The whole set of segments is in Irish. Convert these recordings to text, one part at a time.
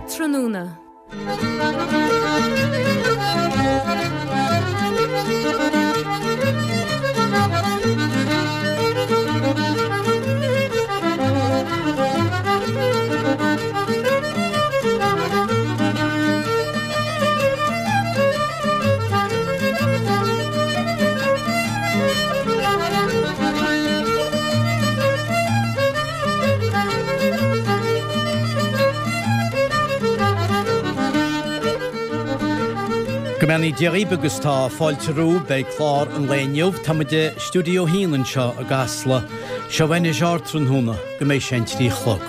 Ardtráthnóna. Go mbeannaí Dia dhaoibh agus tá fáilte romhaibh beidh clár an lae inniu. Tá muid i Stiúideo 1 anseo i gCasla. Seo anois Ardtráthnóna go mbeidh sé an 3 a chlog.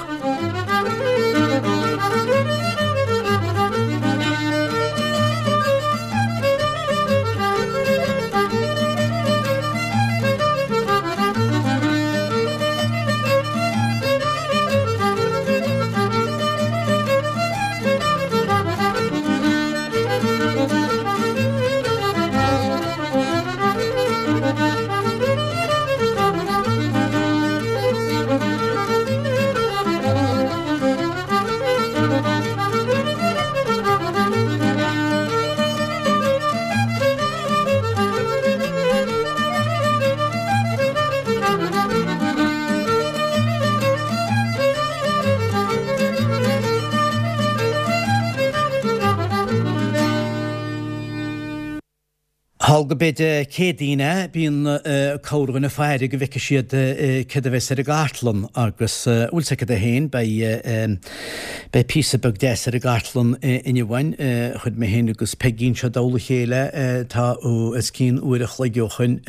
Thall go b'é Dé Céadaoin é, bíonn corrdhuine ag faire go bhfeicfidh siad céard a bheas ar an gcartlann agus, bhfuil 's agat é féin, beidh beidh píosa beag deas ar an gcartlann inniu againn. Chuir mé féin agus Peigí anseo i dtoll a chéile tá os cionn uair a chloig ó shoin.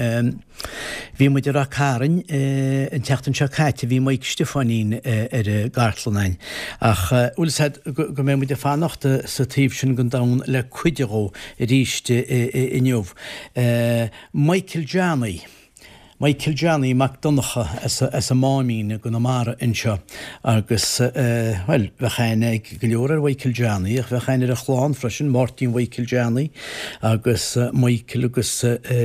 Bhí muid i Rath Cairn an tseachtain seo caite, bhí Mike Stiofáinín ar an gcartlann againn. Ach bhfuil 's a'd go mbeidh muid ag fanacht sa taobh sin den domhan le cuid dhó arís inniu. Michael Johnny. Michael Johnny Mac Donncha as an Máimín i gConamara anseo agus, bhuel, bheadh aithne ag go leor ar Mhichael Johnny ach bheadh aithne ar a chlann freisin, Máirtín Mhichael Johnny agus Michael agus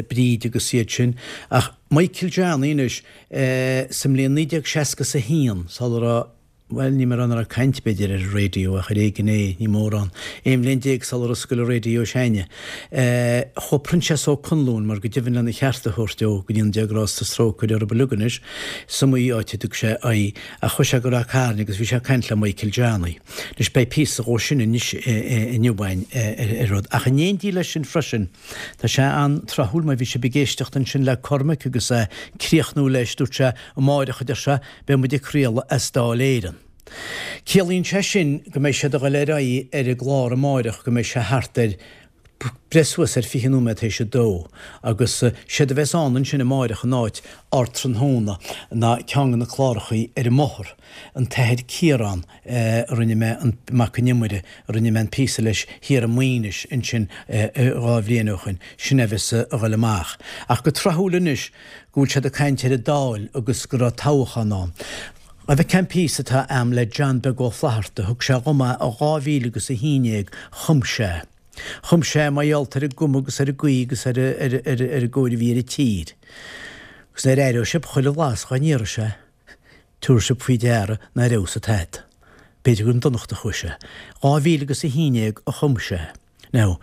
Bríd agus iad sin. Ach Michael Johnny anois, sa mbliain 1961, sula raibh, bhuel, níl mé ag rá nach raibh caint, b'fhéidir, ar an raidió ach ar éigean é, ní mórán. 11 bhliain sular oscail an raidió s'againne. Chuaigh Proinsias Ó Conluain, mar go deimhin lena cheart a thabhairt dó, go ndéana Dia grásta is trócaire orthu uilig anois, is iomaí áit a dtug sé aghaidh, ach chuaigh sé go Rath Cairn agus bhí sé ag caint le Michael Johnny. Anois beidh píosa dhó sin anois inniu againn ar rud. Ach in éindí leis sin freisin, tá sé an-tráthúil mar bhí sibh ag éisteacht ansin le Cormac agus é ag críochnú leis, dúirt sé, amáireach, a deir sé, beidh muid ag craoladh as Dáil Éireann. Ciallaíonn sé sin go mbeidh siad a dhul ar aghaidh ar an gclár amáireach go mbeidh sé thart ar breith suas ar 20 nóiméad théis a dó agus séard a bheas ann ansin amáireach in áit Ardtráthnóna ná ceann de na clárachaí ar an mbóthar, an tAthair Ciarán a rinne mé an Mac an Iomaire a rinne mé an píosa leis thiar i Maínis ansin dhá bhliain ó shoin, sin é a bheas a dhul amach. Ach go tráthúil anois go bhfuil siad ag caint ar an Dáil agus go raibh toghchán ann. Gabh a fheiceáil an píosa atá a'm le John Beag Ó Flatharta, thug sé dhom é i 2000 agus 11, chum sé. Chum sé é mar gheall ar an gcuma agus ar an gcaoi agus ar an gcóir a bhí ar an tír. Agus nuair a aireoidh sibh chuile bhlas dhá n-iarraidh sé, tabharfaidh sibh faoi deara nár fheabhas tada. B'fhéidir gur chun donachta a chuaigh sé. 2000 agus 11 a chum sé. Now,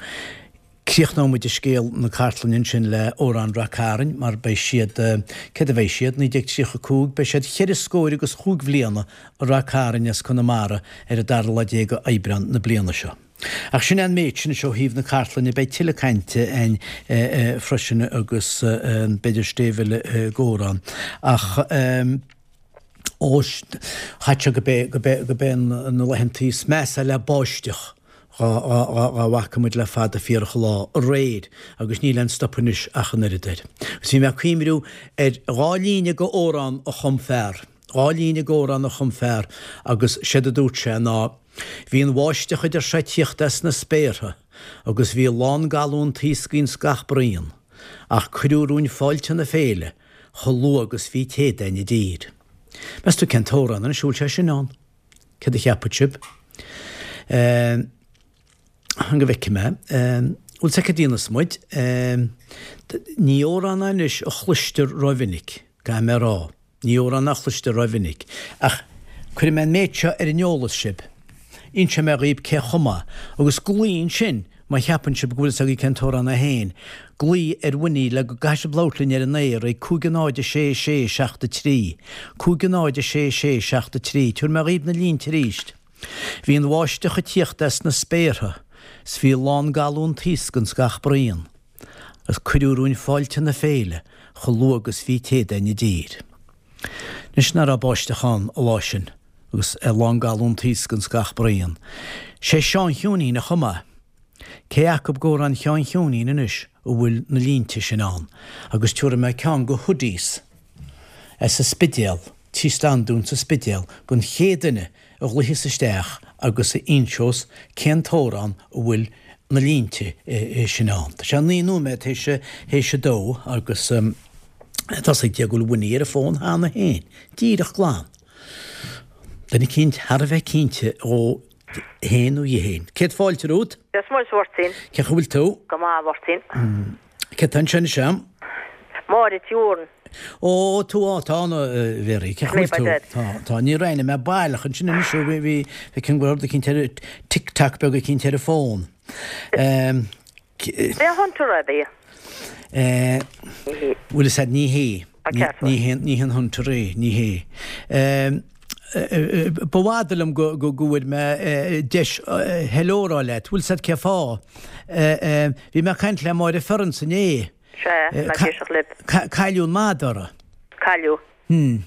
críochnóidh muid scéal na cartlainne ansin le Amhrán Rath Cairn mar beidh siad, céard a bheidh siad, 1935, beidh siad cheithre scóir agus chúig bhliana i Rath Cairn as Conamara ar an dara lá déag d'Aibreán na bliana seo. Ach sin é an méid sin ó thaobh na cartlainne, beidh tuilleadh cainte againn freisin agus b'fhéidir stéibh eile i gcomhrá. Ach. Ó, chaith sé go b'é, go b'é, go b'é na laethantaí is measa le báisteach dhá, dhá, dhá, dhá bhfaca muid le fada fíorach an lá, aréir, agus níl aon stop anois ach an oiread air. Agus bhí mé ag cuimriú ar dhá líne go amhrán a chum fear, dhá líne go amhrán a chum fear agus séard a dúirt sé ná, Bhí an bháisteach a deir sé ag tíocht as na spéartha agus bhí lán galún taoscaí ins gach braon, ach cuireadh romhainn fáilte na féile, chomh luath agus bhí téad againn i dtír. Meas tú cén t-amhrán anois a bhfuil sé sin ann? Céard a cheapfadh sibh? Fan go bhfeicfidh mé. Bhfuil 's agat cad a dhéanfas muid? Ní amhrán é anois a chloistear rómhinic, caithfidh mé a rá. Ní amhrán é a chloistear rómhinic. Ach cuirfidh mé an méid seo ar an eolas sibh. Inseoidh mé dhaoib cé chum é. Agus glaoigh ansin má cheapann sibh go bhfuil fhios agaibh cén t-amhrán é féin. Glaoigh ar Winnie le go gcaithfidh sibh labhairt linn ar an aer ag 5 0 6 6 7 3. 5 0 6 6 7 3. Tabharfaidh mé dhaoib na línte arís. Bhí an bháisteach ag tíocht as na spéartha 's bhí lán galún taosc ins gach braon agus cuireadh romhainn fáilte na féile chomh luath agus bhí Céadaoin i dtír. Anois ná raibh báisteach ann an lá sin agus lán galún taosc ins gach braon. Sé Seán Chiúinín a chum é. Cé acub d'amhráin Sheáin Chiúinín anois a bhfuil na línte sin ann agus tiúrfaidh mé ceann go hoodies as an Spidéal, Tí Standún sa Spidéal don chéad duine a ghlaoifeas isteach agus a inseos cén t-amhrán a bhfuil na línte sin ann. Tá sé 9 nóiméad théis a dó agus tá 's ag Dia go bhfuil Winnie ar an bhfón cheana féin. Díreach glan. Duine eicínt thar a bheith cinnte dhó fhéin nó dhi fhéin. Céad fáilte romhat. Dia 's Muire duit a Mháirtín. Cén chaoi a bhfuil tú? Go maith a Mháirtín. Cé tá ansin anseo? Máire Tí Mhóráin. Ó, tú, á, tá, a Mhéaraí, cén chaoi a bhfuil tú? Tá, tá, níor aithnigh mé baileach ansin anois, bhí, bhí, feicim go raibh rud eicínt ar, tic tac beag eicínt ar an bhfón. B'é Hunter ab é? Bhuel, is ea, ní hé. Ní hé, ní hé an Hunter é, ní hé. Ba fhada liom go bhfuair mé deis hello a rá leat. Bhfuil 's a'd cé fáth? Bhí mé ag caint le Máire Ferrance inné. Sea, mé ag éisteacht libh. Cailleadh an madra. Cailleadh. Hmm.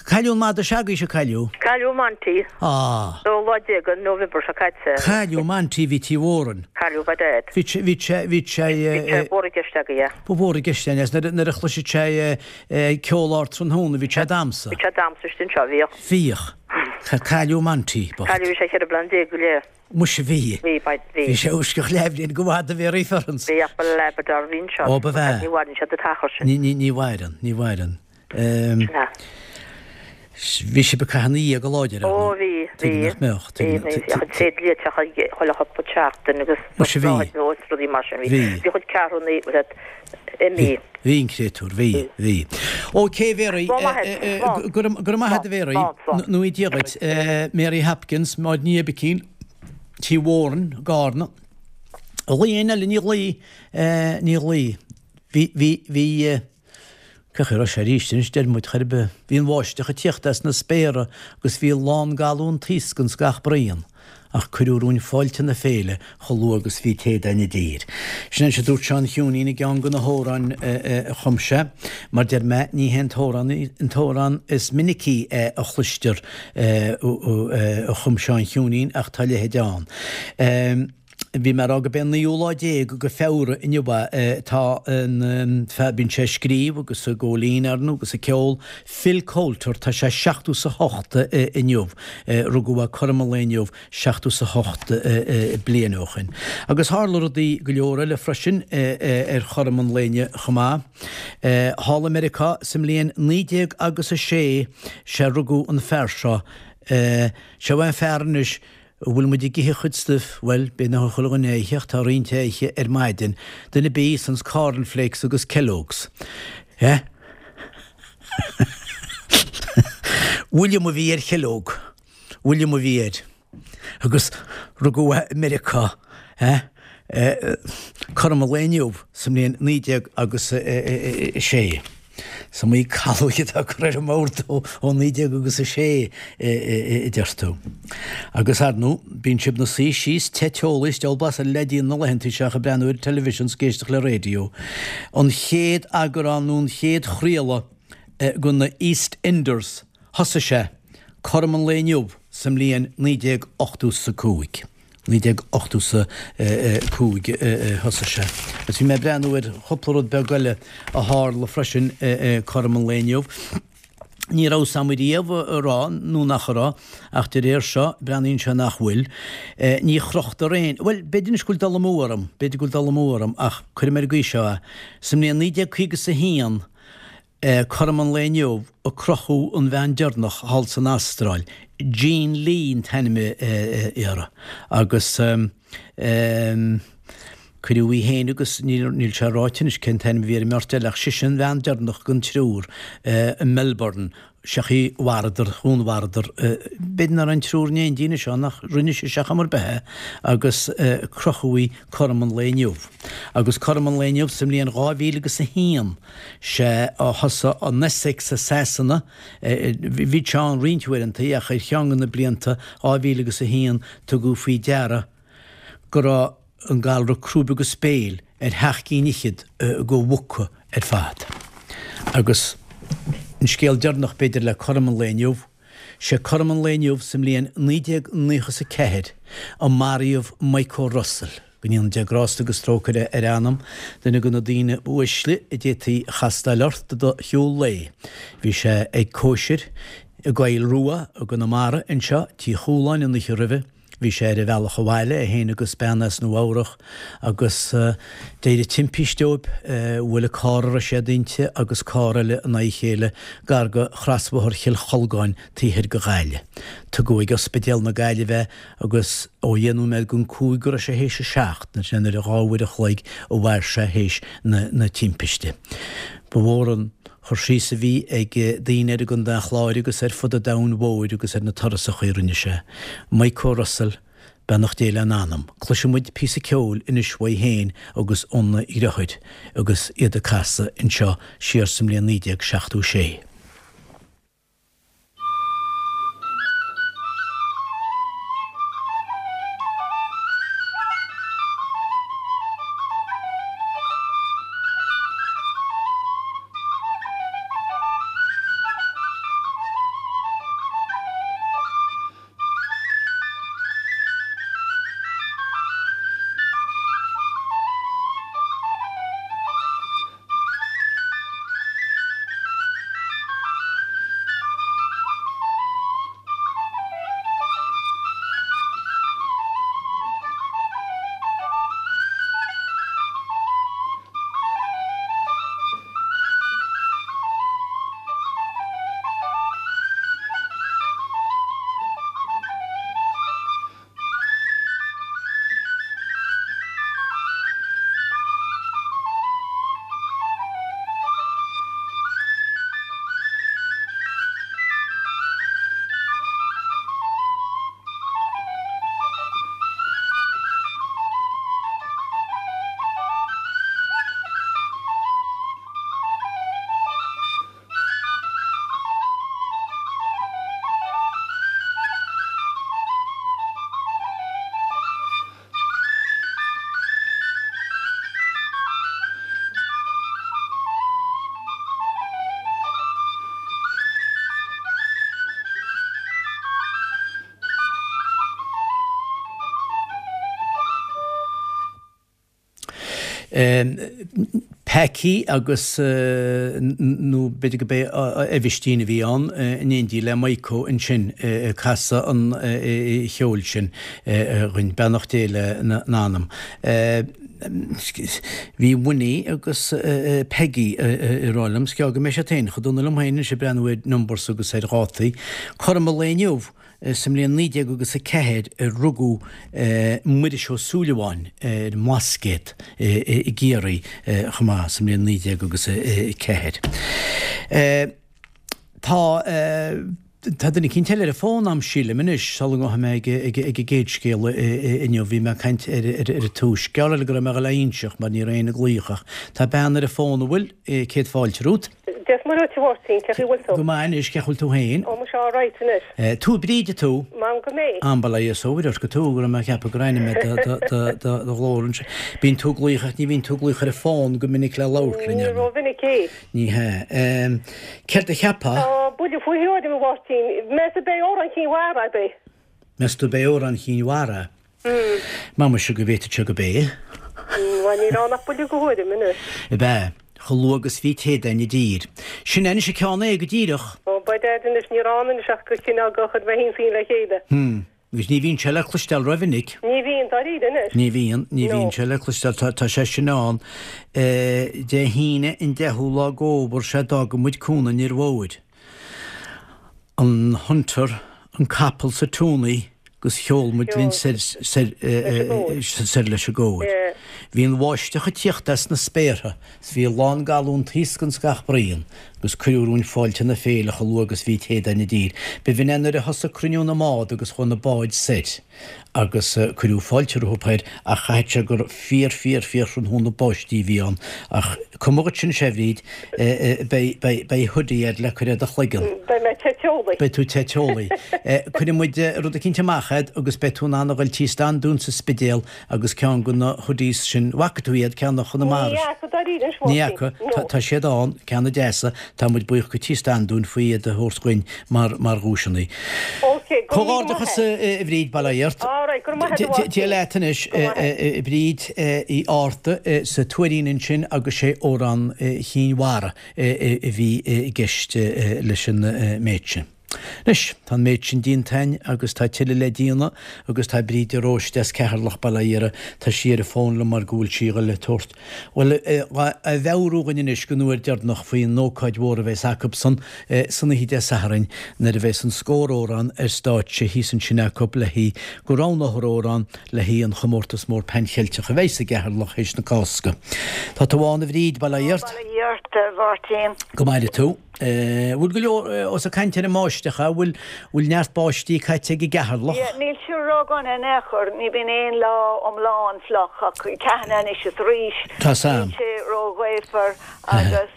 Cailleadh an madra s'agaibhse, cailleadh? Cailleadh Monty. Ah. Dóú lá déag de November seo caite. Cailleadh Monty bhí Tí Mhóráin. Cailleadh by dad. Bhí sé, bhí sé, bhí sé. Bhí sé mhór i gceist agaibh. Ba mhór i gceist é, nuair a chloiseadh sé ceol ard tráthnóna, bhí sé ag damsa. Bhí sé ag damsa istigh anseo, bhíodh. Bhíodh. Cailleadh Monty, bocht. Cailleadh, bhí sé cheithre bliana déag go leith. Muise bhí. Bhí, bhí. Bhí sé uisceach leathbhliain go bhfada Mhéaraí Ferrance. Bhí ach ba Labrador a bhí anseo. Ó, ba bhea. Ní mhaireann siad an t-achar sin. Ní, ní, ní mhaireann, ní mhaireann. Sin é. Bhí sibh ag caitheamh ina dhiaidh go láidir, ar Ó, bhí, bhí. Tuige nach mbeadh, tuige. Bhí, bhí. Bhí tréad liaiteacha chuile chúpla seachtain agus Muise bhí. is rudaí mar sin. Bhí. Bhí chuid ceathrúnaí, imithe. Bhí an créatúr, bhí, bhí. Ok, Mhéaraí, go raibh maith agat a Mhéaraí, nó Dia dhuit. Mary Hopkins, Máire Ní Oibicín, Tí Mhóráin, Gárna. Ghlaoigh éinne eile, ní ghlaoigh, ní ghlaoigh. Bhí, bhí, bhí, Cén chaoi a raibh sé arís anois, deir muid, chor ar bith. Bhí an bháisteach ag tíocht as na spéartha agus bhí lán galún taosc ins gach braon, ach cuireadh romhainn fáilte na féile chomh luath agus bhí Céadaoin i dtír. Sin é a dúirt Seán Chiúinín i gceann de na hamhráin a chum sé. Mar deir mé, ní hé an t-amhrán an t-amhrán is minicí a chloistear a chum Seán Chiúinín ach tá a leithéid ann. Bhí mé ag rá gurb é an naoú lá déag de Feabhra inniu é. Tá an fear, bíonn sé ag scríobh agus ag góilín ar ndóigh agus ag ceol, Phil Coulter, tá sé seachtó 's a hocht inniu. Rugadh é cothrom an lae inniu seachtó 's a hocht bliain ó shin. Agus tharla rudaí go leor eile freisin ar chothrom an lae inniu chomh maith. Thall i Meiriceá sa mbliain 19 agus a sé, sé rugadh an fear seo. Seo é an fear anois An bhfuil muid ag ithe a chuid stuif? Bhuel, b'fhéidir nach bhfuil chuile dhuine á ithe ach tá roinnt á ithe ar maidin. Duine ar bith a íosanns cornflakes agus Kellogg's. Eh? William a bhí ar Kellogg. William a bhí air. Agus rugadh é i Meiriceá. Eh? Cothrom an lae inniu sa mbliain 19 agus 6. Is iomaí calóig atá curtha ar an mbord ó 19 agus 6 a deir tú. Agus ar ndóigh, bíonn sibh 'na suí síos te teolaí is diabhal blas eile le déanamh na laethanta seo ach ag breathnú ar an television 's ag éisteacht le radio. An chéad eagrán nó an chéad chraoladh de na EastEnders, thosaigh sé cothrom an lae inniu sa mbliain 1985. 1985 a thosaigh sé. Agus bhí mé ag breathnú ar chúpla rud beag eile a tharla freisin cothrom an lae inniu. Ní raibh 's a'm riamh an raibh nó nach raibh, ach de réir seo, breathnaíonn sé nach bhfuil. Ní chrochtar aon, bhuel, b'fhéidir anois go bhfuil dul amú orm, b'fhéidir go bhfuil dul amú orm, ach cuirfidh mé ar an gcaoi seo é. Sa mbliain 1951, Cothrom an lae inniu a crochadh an bhean deireanach thall san Astráil, Jean Lee an t-ainm uirthi, agus. Cuireadh í féin agus, níl sé ráite anois cén t-ainm a bhí ar an mbeirt eile ach sise an bhean deireanach den triúr i Melbourne, seachaí mharaíodar, dhúnmharaíodar, b'fhéidir nach raibh an triúr in éindí anois ann ach rinne sise ar chuma ar bith é agus crochadh í cothrom an lae inniu. Agus cothrom an lae inniu sa mbliain 2000 agus a haon, sé a thosaigh an Essex i Sasana, bhí sé ann roinnt uaireanta ach ar cheann de na blianta 2000 agus a haon tugadh faoi deara go raibh an galra crúibe agus béil ar sheacht gcinn fhichead de mhuca ar fad. Agus an scéal deireanach, b'fhéidir, le cothrom an lae inniu, sé cothrom an lae inniu sa mbliain 1994 a maraíodh Micho Russell, go ndéana Dia grásta agus trócaire ar a anam, duine de na daoine ba uaisle a d'fhéadfaí a chastáil ort i do shiúl lae. Bhí sé ag cóisir i gCoill Rua i gConamara anseo, Tí Chualáin, an oíche roimhe. Bhí sé ar a bhealach abhaile, é féin agus bean as Nua Eabhrach, agus d'éirigh timpiste dóibh. Bhuail an carr a raibh siad inti agus carr eile in aghaidh a chéile gar do chrosbhóthar Chill Cholgáin taobh thoir de Ghaillimh. Tugadh ag Ospidéal na Gaillimhe é agus ó dheich nóiméad don chúig go raibh sé théis a seacht, sin ar a dhá uair a chloig a mhair sé théis na timpiste. Ba mhór an. Cur síos a bhí ag daoine air i gContae an Chláir agus ar fud an domhain mhóir agus ar na turasacha a rinne sé. Micho Russell, beannacht Dé lena anam. Cloisfidh muid píosa ceoil anois uaidh féin agus óna dheartháir agus iad ag casadh anseo siar sa mbliain 1976. Packy agus, nó b'fhéidir go b'é Aibhistín a bhí ann, in éindí le Maidhcó ansin ag casadh an cheoil sin dhuinn. Beannacht Dé lena n-anam. Bhí Winnie agus Peggy ag rá liom, 's gearr go mbeidh siad féin chomh dona liom féin anois ag breathnú ar numbers agus ar dhátaí. Cothrom an lae inniu, Sa mbliain 19 agus 4 a rugadh Muiris Ó Súilleabháin ar an mBlascaod i gCiarraí chomh maith sa mbliain 19 agus 4. Tá tá duine eicínt eile ar an bhfón a'm sílim anois sula ngabhfaidh mé ag ag an gcéad scéal inniu. Bhí mé ag caint ar ar an tús. Gearr eile go raibh mé a dhul a inseacht mar ní raibh éinne ag glaoch ach tá bean ar an bhfón an bhfuil? Céad fáilte romhat. Dia is Muire dhuit a Mháirtín, cén chaoi a bhfuil tú? Go maith anois, cén chaoi a bhfuil tú féin? Ó, muise alright anois. Tú Bríd tú? M'anam go mbeidh. Am bail ó Dhia is ó Mhuire ort go tú, go raibh mé ag ceapadh gur aithnigh mé do ghlór ansin. Bíonn tú ag glaoch ach ní bhíonn tú ag glaoch ar an bhfón go minic le labhairt linn, Ní ró-mhinic é. Ní hea. Céard a cheapfá? Tá buille faoi thuairim, a Mháirtín. Meas tú ab é Amhrán Chinn Mhara ab é? Meas tú ab é Amhrán Chinn Mhara? M'anam muise go bhféadfadh sé gurb é. Bhuel, níl ann ach buille de thuairim anois. Ab ea? Chomh luath agus bhí téad againn i dtír. Sin é anois an ceann é, go díreach. Ó, by dad anois, ní raibh ann anois ach go cineál go chuir mé féin is í le chéile. Hm. Agus ní bhíonn sé le cloisteáil rómhinic. Ní bhíonn, dáiríre anois. Ní bhíonn, ní bhíonn sé le cloisteáil. Tá, tá sé sin ann. Dé hAoine an deichiú lá d'fhómhar sea d'fhága muid Cuan an Fhir Mhóir. An Hunter, an capall 's an tonney 'gus sheol muid linn soir soir leis an gcóir. Bhí an bháisteach ag tíocht as na spéartha 's bhí a lán galún taosc ins gach braon agus cuireadh romhainn fáilte na féile chomh luath agus bhí téadáin i dtír. B'shin é nuair a thosaigh cruinniú na mbád agus chuaigh na báid soir agus cuireadh fáilte rompu thoir ach chaithfeadh sé gur fíor fíor fíor thráthnóna báistí a bhí ann ach cuma dhuit sin sea a Bhríd, beidh beidh beidh hoodie air le cur ar do chloigeann. Beidh mé te teolaí. Beidh tú te teolaí. Cuirfidh muid rud eicínt amach a'd agus beidh tú in ann a ghoil tí Standún sa Spidéal Agus ceann de na hoodies sin, bhfaca tú iad, ceann de Chonamara. Ní fhaca dáiríre anois, Ní fhaca. No. Tá siad ann, ceanna deasa, tá muid buíoch go Tí Standún faoi iad a thabhairt dhuinn mar, mar dhuaiseanna. Ok, go raibh míle maith Comhghairdeachas a Bhríd, bail ó Dhia ort. All right, go raibh maith agat a Mháirtín. Dia leat anois, Go raibh maith. a Bhríd Uí Fhátharta sa Tuairín ansin agus sé Amhrán Chinn Mhara a bhí i gceist leis an méid sin. Anois, tá an méid sin déanta againn agus tá tuilleadh le déanamh agus tá Bríd de Róiste as Ceatharlach, bail ó Dhia uirthi, tá sí ar an bhfón liom mar go bhfuil sí a dhul le tabhairt, bhuel, a mheabhrú dhuinn anois don uair deireanach faoin ócáid mhór a bheas acubsan san oíche Dé Sathairn nuair a bheas an Scór Amhrán ar stáitse thíos ansin acub le haghaidh go roghnófar amhrán le haghaidh an chomórtas mór Pan Cheilteach a bheas i gCeatharlach théis na Cásca. Tá tú ann a Bhríd, bail ó Dhia ort. Bail ó Dhia ort, a Mháirtín. Go maire tú. Bhfuil go leor, ós ag caint ar an mbáisteach, a bhfuil, bhfuil neart báistí caite ag i gCeatharlach? Yeah, níl sé ródhona in aon chor, ní bhíonn aon lá iomlán fliuch ach ceathanna anois is arís. Tá sam. Níl sé róghaofar agus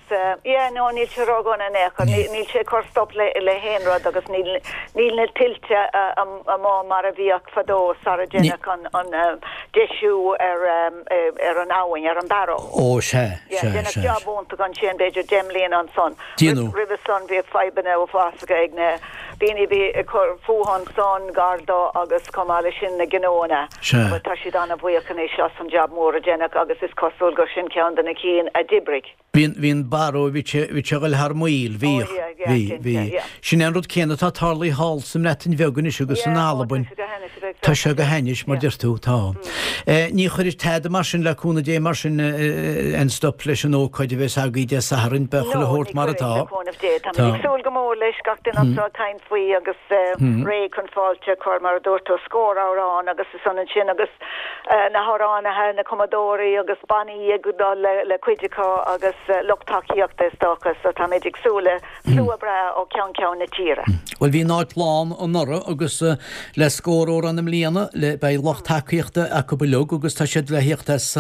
yeah, no, níl sé ródhona in aon chor, níl sé ag cur stop le le haon rud agus níl níl na tuilte amuigh mar a bhíodh fadó sara deineadh an an deisiú ar ar an abhainn, ar an Barrow. Ó, sea, Yeah, sea, deineadh sea. job iontach ansin, b'fhéidir 10 mbliana ansan. Déanadh. Roimhe san bhíodh fadhbanna uafásacha ag na daoine a bhí ag cur fúthu ansan, gar dó agus chomh maith leis sin na gnóanna. Sea. But tá siad an-bhuíoch anois as an job mór a deineadh agus is cosúil gur sin ceann de na cinn a d'oibrigh. Bhí an, bhí an Barrow, bhí sé, bhí sé a ghoil thar maoil, bhíodh, Oh yeah, yeah, bhí, cinnte, bhí. yeah. Sin é an rud céanna atá tarlaithe thall sa mBreatain Bheag anois agus in Yeah, oh, tá Albain. sé go hainnis a bheith Tá sé go hainnis, mar yeah. deir tú, tá. Eh, ní chuirfidh tada mar sin, le cúnamh Dé, mar sin, eh, aon stop leis an ócáid a bheas agaibh Dé Sathairn, beidh No, chuile ní shórt mar chuirfidh, atá. le cúnamh Dé. Táimid Tá. ag súil go mór leis, gach duine anseo ag caint faoi agus eh, réidh chun fáilte a chur, mar a dúirt tú, scór amhrán agus is ionann sin agus na hamhránaithe, na cumadóirí agus bannaí ag dul le cuid acu agus lucht tacaíochta is dócha so táimid ag súil le slua breá ó cheann ceann na tíre. Bhuel bhí an áit lán anuraidh agus le Scór Amhrán i mbliana le beidh lucht tacaíochta acu uilig agus tá siad le thíocht as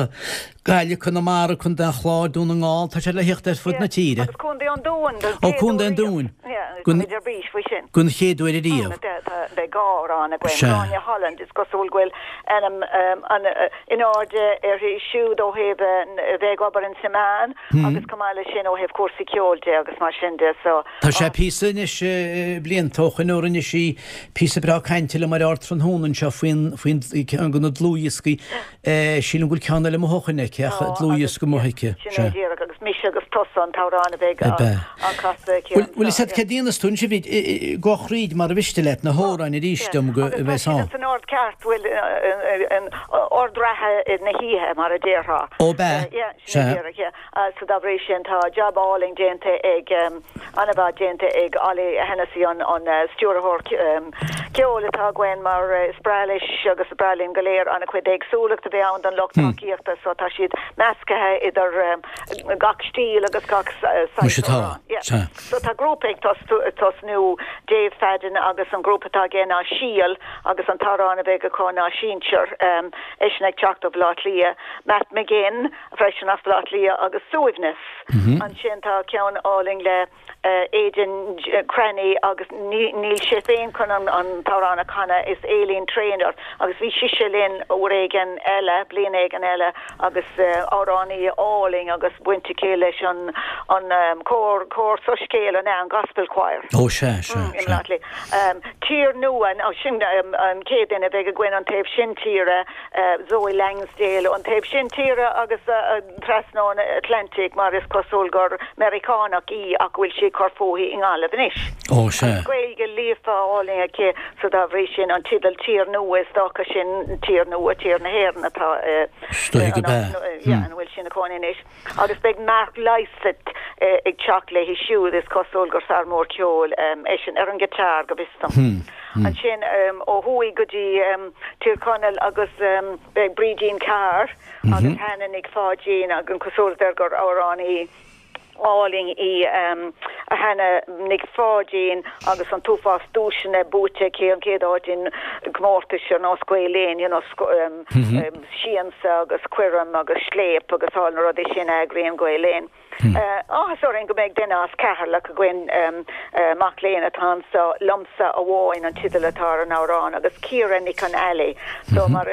Gaillimh, Conamara, Contae an Chláir, Dún na nGall, tá siad le thíocht ar fud na tíre. Agus Contae an Dúin don Ó chéad Contae uair an riamh. Dúin. Yeah, Don táimid ar bís faoi sin. don chéad uair ariamh. Beidh dhá amhrán againn. Sea. Gráinne Holland, is cosúil go bhfuil ainm an in airde uirthi siúd ó thaobh a bheith ag obair ins na meáin agus chomh maith leis sin ó thaobh cúrsaí ceoil de agus mar sin de so. Tá sé píosa anois blianta ó shoin ó rinne sí píosa breá cainte liom ar Ardtráthnóna anseo faoin faoin ceann de na dlúthdhioscaí Sílim go bhfuil ceann eile amuigh ó shoin aici ach dlúthdhiosca amuigh aici. Sin é díreach agus Mise agus Tusa an t-amhrán a bheidh á chasadh aici Bhfuil fhios agat céard a dhéanfas tú anois a Bhríd, gabh thríd mar a mhiste leat na hamhráin arís dom go Agus tá bheas siad ann. san ord ceart, bhuel, in ord reatha na hoíche mar a déarfá. Ó b'ea? Yeah, sin é Sea. díreach, yeah. So dá bhrí sin tá jab álainn déanta ag, an-mhaith déanta ag Ollie Hennessy an stiúrthóir ceoil atá againn mar is breá leis agus is breá linn go léir an-chuid éagsúlacht a bheith ann don lucht tacaíochta so tá siad measctha idir gach stíl agus gach saghas Muise tá, amhrán. Yeah. sea. So tá grúpa ag tosnú, Dave Fadden agus an grúpa atá aige ná Síol agus an t-amhrán a bheidh acu ná Sinsear, eisean ag teacht ó Bhaile Átha Cliath, Matt McGinn, freisin as Baile Átha Cliath agus Suaimhneas. Ansin tá ceann álainn le Aidan Cranny agus níl sé féin chun an t-amhrán a chanadh, is Aileen Traynor agus bhí sise linn uair éigin eile, bliain éigin eile agus amhránaí álainn agus baint aici leis an an cór, cór soiscéil an ea, an Gospel Choir. Ó sea, sea, I mBaile Átha Cliath. Tír Nua, sin an chéad duine a bheidh againn an taobh sin tíre. Zoe Langsdale ón taobh sin tíre agus trasna an Atlantaigh mar is cosúil gur Meiriceánach í ach go bhfuil sí ag cur fúithi i nGaillimh anois. Ó, sea. Agus Gaeilge líofa álainn aici so dá bhrí sin an teideal Tír Nua is dócha sin Tír Nua, Tír na hÉireann atá Is dóigh go b'ea. yeah, ina bhfuil sí ina cónaí anois. Agus beidh Mark Lysaght ag teacht léi siúd, is cosúil gur fear mór ceoil eisean, ar an guitar go bhfios dom. Ansin ó thuaidh go dtí. Tír Chonaill agus beidh Brídín Carr agus Hannah Nic Pháidín agus an cosúlacht air gur amhránaí álainn í Hannah Nic Pháidín agus an t-uafás duaiseanna buaite aici, an chéad áit in gcomórtais ar nós Gael Linn, you know, Siansa agus Coirm agus Scléip agus all na rudaí sin a eagraíonn Gael Linn. Áthas orainn go mbeidh duine as Ceatharlach againn, mac léinn atá anso, Liomsa Amháin an teideal atá ar an amhrán agus Ciara Nic an Ailí. So mar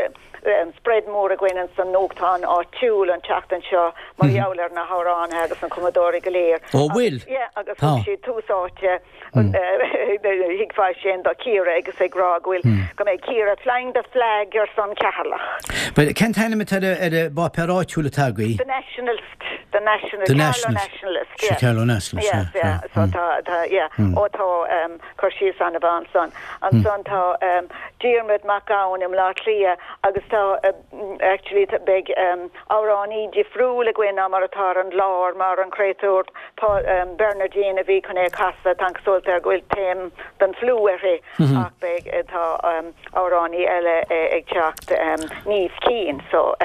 spread mór againn ins an nuachtán áitiúil an tseachtain seo mar gheall ar na hamhránaithe agus na cumadóirí go léir. Ó bhfuil? Yeah, agus thug siad tús áite thuigfeá sin do Ciara agus ag rá go bhfuil go mbeidh Ciara flying the flag ar son Cheatharlach. Bhuel, cén t-ainm atá ar an bpáipéar áitiúil atá agaibh? The Nationalist, The Nationalist, The Carlow Nationalist. Nationalist, yeah. Carlow Nationalist, Yes, yeah, yeah. yeah. So tá, tá, yeah. Ó tá cur síos an-mhaith ansan. Ansan tá Diarmuid Mac Gabhann i mBleá Cliath agus tá actually beidh amhránaí difriúil againn ná mar atá ar an gclár mar an créatúr Bernardine a bhí chun é a chasadh, tá an chosúlacht air go bhfuil taom den fliú uirthi ach beidh tá amhránaí eile ag teacht Niamh Keane so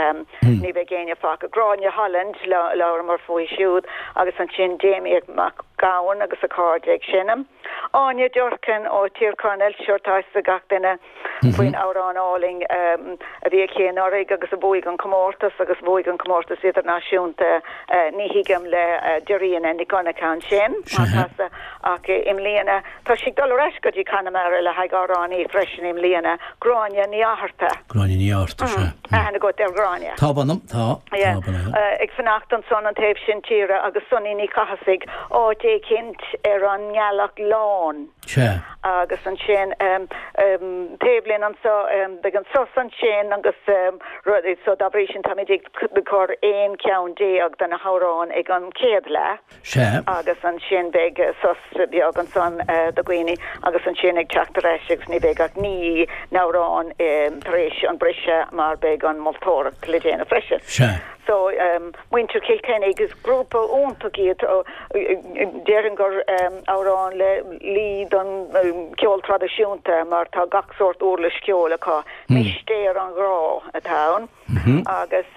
ní bheidh éinne fágtha. Gráinne Holland labhramar fúithi siúd agus ansin Damien Mac Gabhann agus a chairde ag seinm. Áine Durkin ó Tír Chonaill, sure tá fhios ag gach duine faoin amhrán álainn a bhí aici anuraidh agus a bhuaigh an comórtas agus bhuaigh an comórtas idirnáisiúnta Ní Thuigim le Dairena Nic Dhonncha ansin á casadh ach i mbliana tá sí ag dul ar ais go dtí Conamara le haghaidh amhránaí freisin i mbliana, Gráinne Ní Fhátharta. Gráinne Ní Fhátharta, sea. Aithne agat ar Ghráinne? Tá, mh'anam, tá. Yeah. Ag fanacht ansan an taobh sin tíre agus Sonny Ní Chathasaigh áit éicint ar an nGealach Lán. Sea. Agus ansin taobh linn anso beidh an sos ansin agus rudaí so dá bhrí sin táimid ag cur 11 ceann de na hamhráin ag an chéad leath. Sea. Agus ansin beidh sos beag ansan do dhaoine agus ansin ag teacht ar ais agus ní bheidh ach 9 n-amhrán tar éis an briseadh mar beidh an moltóireacht le déanamh freisin. Sea. So, muintir Chill Chainnigh, is grúpa iontach iad. Déarfainn gur amhrán le luí don cheol traidisiúnta mar tá gach sórt uirlis cheoil acu. Mistéir an Ghrá atá ann. Agus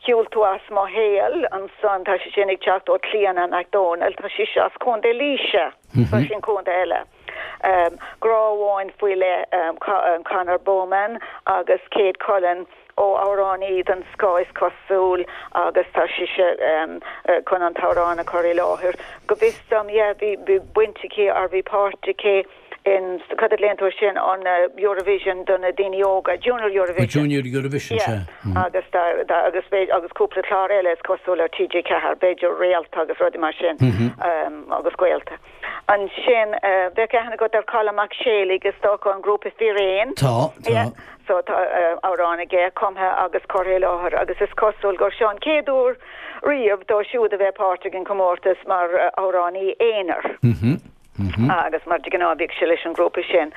Shiúil tú as mo shaol ansan, tá sé sin ag teacht ó Clíona McDonald, tá sise as Contae Laoise, so sin contae eile. Grá amháin faoi leith, Conor Bowman agus Kate Cullen ó amhránaí den scoth is cosúil agus tá sise chun an t-amhrán a chur i láthair. Go bhfios dom, yeah, bhí baint aici or bhí páirt aici in, cad a ghlaonn tú air sin, an Eurovision do na daoine óga, Junior Eurovision. Junior Eurovision, sea. Yeah, agus tá, tá, agus b'fhéidir, agus cúpla clár eile is cosúil ar TG4, b'fhéidir Réalta agus rudaí mar sin, agus Gaolta. Ansin, bheadh aithne agat ar Colm Mac Séalaigh, is dócha, an grúpa Fíréan. Tá, tá. Yeah, so tá amhrán aige cumtha agus curtha i láthair agus is cosúil gur seo an chéad uair riamh dó siúd a bheith páirteach in comórtas mar amhránaí aonair. Agus mar de ghnáth bhíodh sé leis an ghrúpa sin.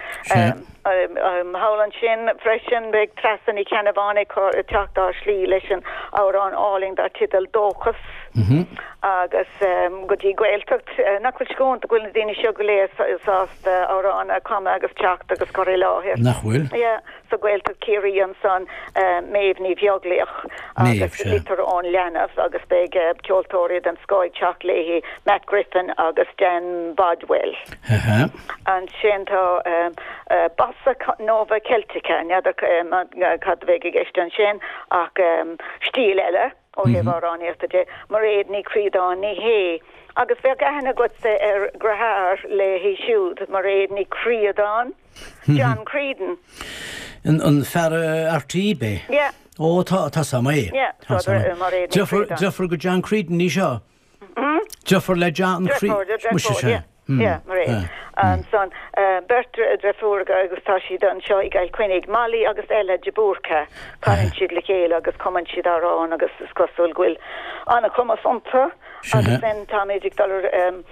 Thall ansin freisin beidh Treasa Ní Cheannabháin ag teacht ár slí leis an amhrán álainn dar teideal 'Dóchas' agus go dtí Gaeltacht. Nach bhfuil sé go hiontach go bhfuil na daoine seo go léir sásta amhrán a chumadh agus teacht agus cur i láthair. Nach bhfuil? Yeah. Sa Ghaeltacht Ciarraí ansan, Méabh Ní Bheaglaoich agus Litir ón Leanbh agus beidh ceoltóirí den scoth ag teacht léi, Matt Griffin agus Dan Bodwell. Ansin tá Bossa Nova Celtica, n'fheadar cad a bheidh i gceist ansin ach stíl eile. Ó thaobh amhránaíochta de, Mairéad Ní Chríodáin, ní hé, agus bheadh aithne agatsa ar dheartháir léi siúd, Mairéad Ní Chríodáin, John Creedon. An fear RTÉ, b'é? Yeah. Ó, tá, tá 's a'm é. Yeah, so Mairéad Ní Chríodáin. Deirfiúr go John Creedon í seo? Deirfiúr le John Creedon. Deirfiúr, yeah. Yeah, Mairéad. Ansan, beirt deirfiúracha agus tá siad anseo i gCill Chainnigh, Molly agus Ella de Búrca. Canann siad le chéile agus cumann siad amhráin agus is cosúil go bhfuil an-chumas iontu. Agus then táimid ag dul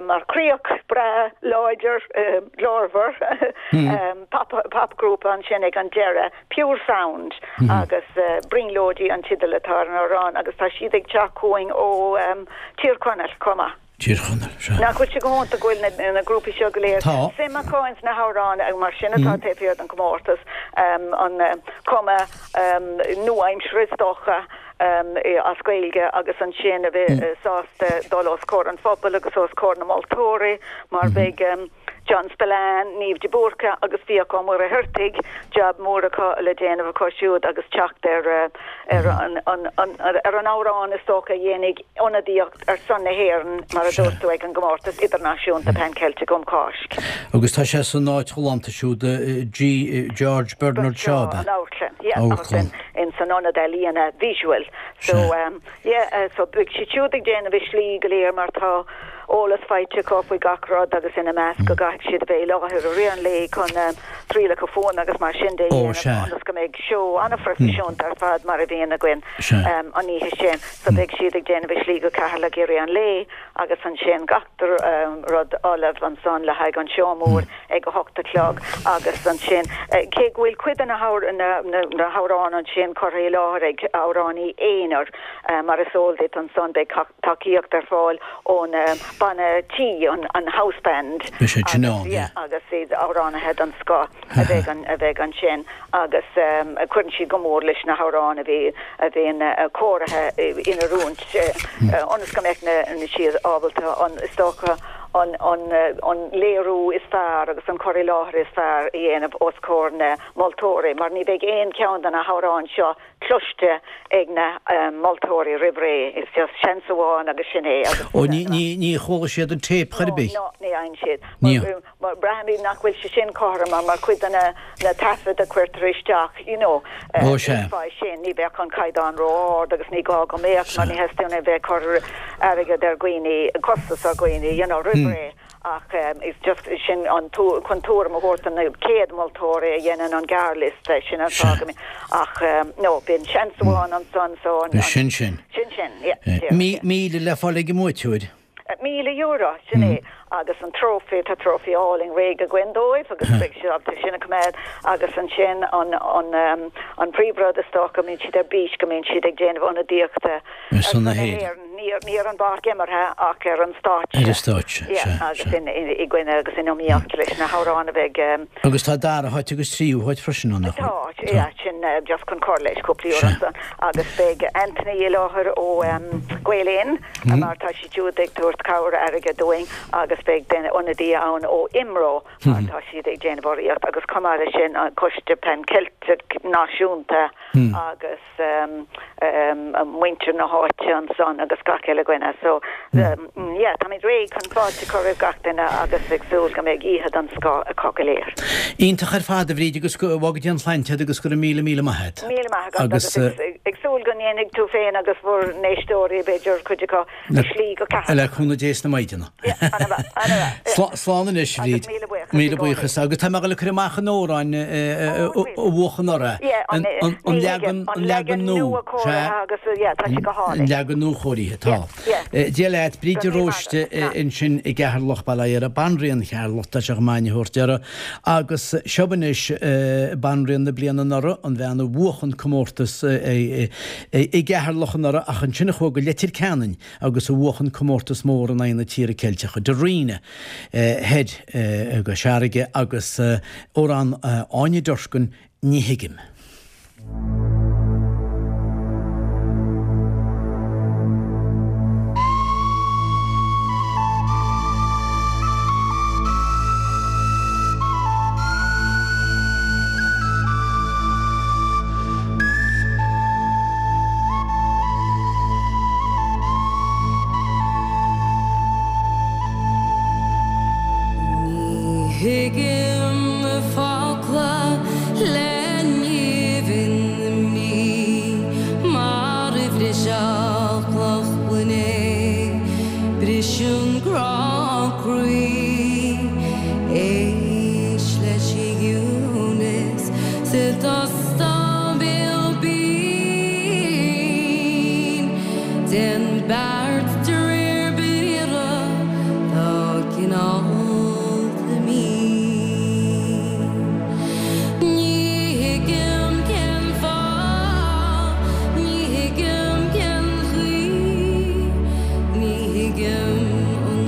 mar chríoch breá láidir glórmhar popghrúpa ansin ag an deireadh, Pure Sound agus Brionglóidí an teideal atá ar an amhrán agus tá siad ag teacht chugainn ó Tír Chonaill chomh maith. Tír Chonaill, sea. Nach bhfuil sé go hiontach go bhfuil na na grúpaí seo go léir Tá. suim acu ins na hamhráin agus mar sin atá taobh thiar den chomórtas, an cuma nua-aimseartha is dócha as Gaeilge agus ansin a bheith sásta dul os comhair an phobail agus os comhair na moltóirí mar beidh John Spillane, Niamh de Búrca agus Fiach Ó Muircheartaigh, jab mór acu le déanamh acu siúd agus teacht ar ar an ar an amhrán is dócha a dhéanfaidh ionadaíocht ar son na hÉireann, mar a dúirt tú, ag an gcomórtas idirnáisiúnta Pan Ceilteach um Cháisc. Agus tá sé san áit ghalánta siúd, G. George Bernard Shaw, ab ea? An amharclann, yeah, agus in san ionad ealaíona visual. So, Yeah, so beidh siad siúd ag déanamh a slí go léir mar tá eolas faighte acu faoi gach rud agus ina measc go gcaithfidh siad a bheith i láthair i rith an lae chun trialacha fuaime agus mar sin de a Ó, dhéanamh sea. ionas go mbeidh seó an-phroifisiúnta ar fad mar a bhíonn againn Sea. an oíche sin. So beidh siad ag déanamh a slí go Ceatharlach i rith an lae agus ansin gach rud ullamh ansan le haghaidh an seó mór ag a hocht a chlog agus ansin, cé go bhfuil cuid de na hamhráin ansin curtha i láthair ag amhránaí aonair, mar is eol duit ansan, beidh tacaíocht ar fáil ón banna tí, an house band, agus iad amhránaithe den scoth a bheidh ansin agus cuireann siad go mór leis na hamhráin a bhí a bhíonn cóirithe in oiriúint ionas go mbeadh siad ábalta an, is dócha, an an léiriú is fearr agus an cur i láthair is fearr a dhéanamh os comhair na moltóirí mar ní bheidh aon cheann de na hamhráin seo cloiste ag na moltóirí roimh ré. Is just seans amháin agus sin é agus. Ó ní ní ní chuala siad an téip chor ar bith? No, no, ní fhaigheann siad. Ní. Mar braithimid nach bhfuil sé sin cothrom mar cuid de na na taifid a chuirtear isteach, you know, Ó sea. fá sin, ní bheadh an caighdeán ró-ard agus ní gá go mbeadh mar ní theastaíonn a bheith ag cur airgead ar dhaoine, costas ar dhaoine, you know, roimh ré ach it's just sin an chun tuairim a thabhairt do na céad moltóirí a dhéanann an gearrliosta, sin an fáth go mbíonn ach no, bíonn seans amháin ansan so an. Sin sin. Sin sin, yeah. 1,000 le fáil ag an mbuaiteoir. €1,000, sin é, agus an trófaí, tá trófaí álainn réidh againn dóibh agus beidh siad ábalta sin a choimeád agus ansin an, an, an príomhrud is dócha go mbíonn siad ar bís, go mbíonn siad ag déanamh ionadaíochta ar son na hÉireann, ní ar, ní ar an bpáirc imeartha ach ar an stáitse. Ar an stáitse, Yeah, sea, agus sea. in, in, i gcoinne agus in iomaíocht leis na hamhráin a bheidh. Agus tá dara háit agus tríú háit freisin ann, nach bhfuil? Tá, yeah, sin just chun cur leis cúpla euro ansan agus beidh Anthony i láthair ó Gael Linn. mar tá siad siúd ag tabhairt cabhair airgid dúinn agus beidh duine ionadaí ann ó IMRO mar tá siad ag déanamh urraíocht agus chomh maith leis sin an Coiste Pan Ceilteach Náisiúnta agus muintir na háite ansan agus gach uile dhuine so yeah táimid réidh chun fáilte a chur roimh gach duine agus ag súil go mbeidh oíche den scoth acu go léir. Iontach ar fad a Bhríd agus go bhfága Dia an tsláinte agat agus go raibh míle míle maith agat. Míle maith agat agus ag súil go ndéanfaidh tú féin agus bhur n-éisteoirí, b'fhéidir, cuid acu, a slí go Ceatharlach. Le cúnamh Dé sna maighdeana. Ana-mhaith, ana-mhaith. Slán anois, a Bhríd. Agus míle buíochas i Míle gcónaí. buíochas. Agus tá mé ag dul a cur amach an amhrán a bhuach anuraidh. Yeah, an, An leagan, an an leagan leagan nua. nua cóirithe agus, yeah, tá sé go An hálainn. leagan nuachóirithe, tá. Yeah, yeah. Dia leat, Bríd de Go raibh míle maith Róiste agat. ansin i gCeatharlach, Baile Átha Dara, Banríon Cheatharlach, tá sé chomh maith a thabhairt uirthi. Agus seo anois Banríon na bliana anuraidh, an bhean a bhuach an comórtas i gCeatharlach anuraidh ach ansin a chuaigh go Leitir Ceanainn agus a bhuach an comórtas mór in aghaidh na tíre Ceilteacha, Darina thoir i gCois Fharraige agus amhrán Áine Durkin, Ní Thuigim. Ní thuigim focla le nimh na mí mar a bhrisfeadh cloch gloine briseann grá croí. Éist leis an gciúnas sa t-óstán béal binn. Déan beart de réir briathra tá cineálta mín. Ní thuigim cén fáth, ní thuigim cén chaoi, ní thuigim an.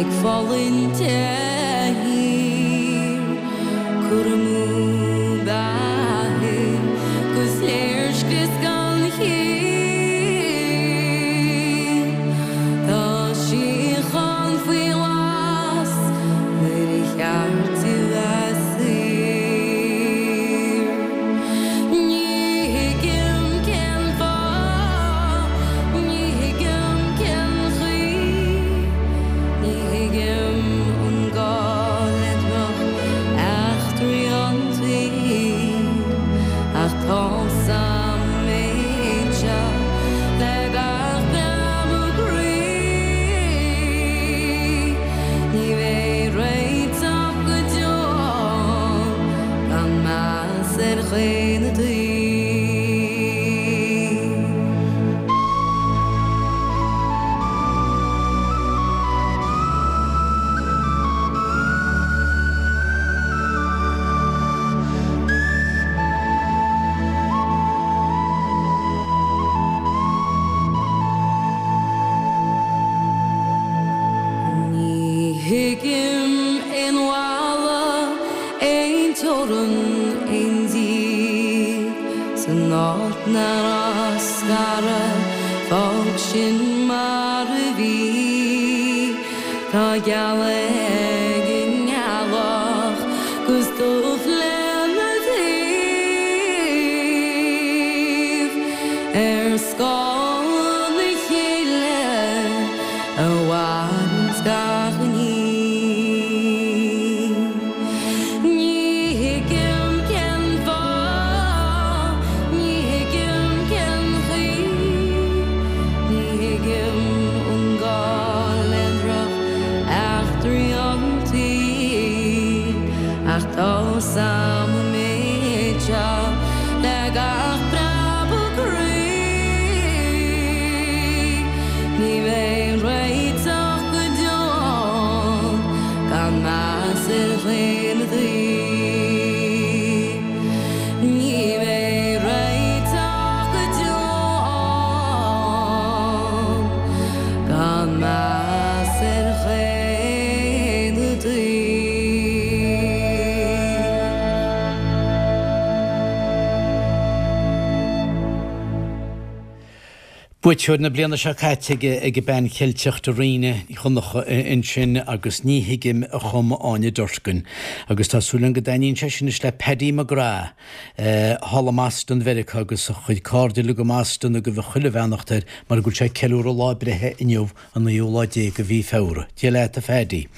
Ag fulaingt de shíor, cur amú beatha 'gus léirscrios gan chiall. Tá síocháin faoi ghlas nuair a cheart di bheith saor. Ní thuigim cén fáth, ní thuigim cén chaoi, ní thuigim an gá le droch eachtraí an tsaoil, ach tá's a'm an méid seo le gach preabadh croí, ní bheidh réiteach go deo gan meas ar dhaonnaí. Ní thuigim aon bhalla Aon teorainn, aon díth san áit nach raibh scaradh, fág sin mar a bhí. Tá gealadh ag an ngealach 'gus dubh lena taobh ar scáth na chéile a mhaireanns gach ní. Ní thuigim cén fáth, ní thuigim cén chaoi, ní thuigim an gá le droch eachtraí an tsaoil, ach tá's a'm an méid seo le gach preabadh croí, ní bheidh réiteach go deo gan meas ar dhaonnaí. Ní bheidh réiteach go deo gan meas ar dhaonnaí. Buaiteoir na bliana seo caite ag an Bean Cheilteach Dairena Ní Dhonncha ansin agus Ní Thuigim a chum Áine Durkin. Agus tá súil agam go dtaitníonn sé sin anois le Paddy McGrath thall i mBoston Mheiriceá agus a chuid cairde uilig i mBoston ag gabháil chuile bheannacht air mar go bhfuil sé ag ceiliúradh lá breithe inniu an naoú lá déag de mhí Feabhra. Dia leat a Phaddy.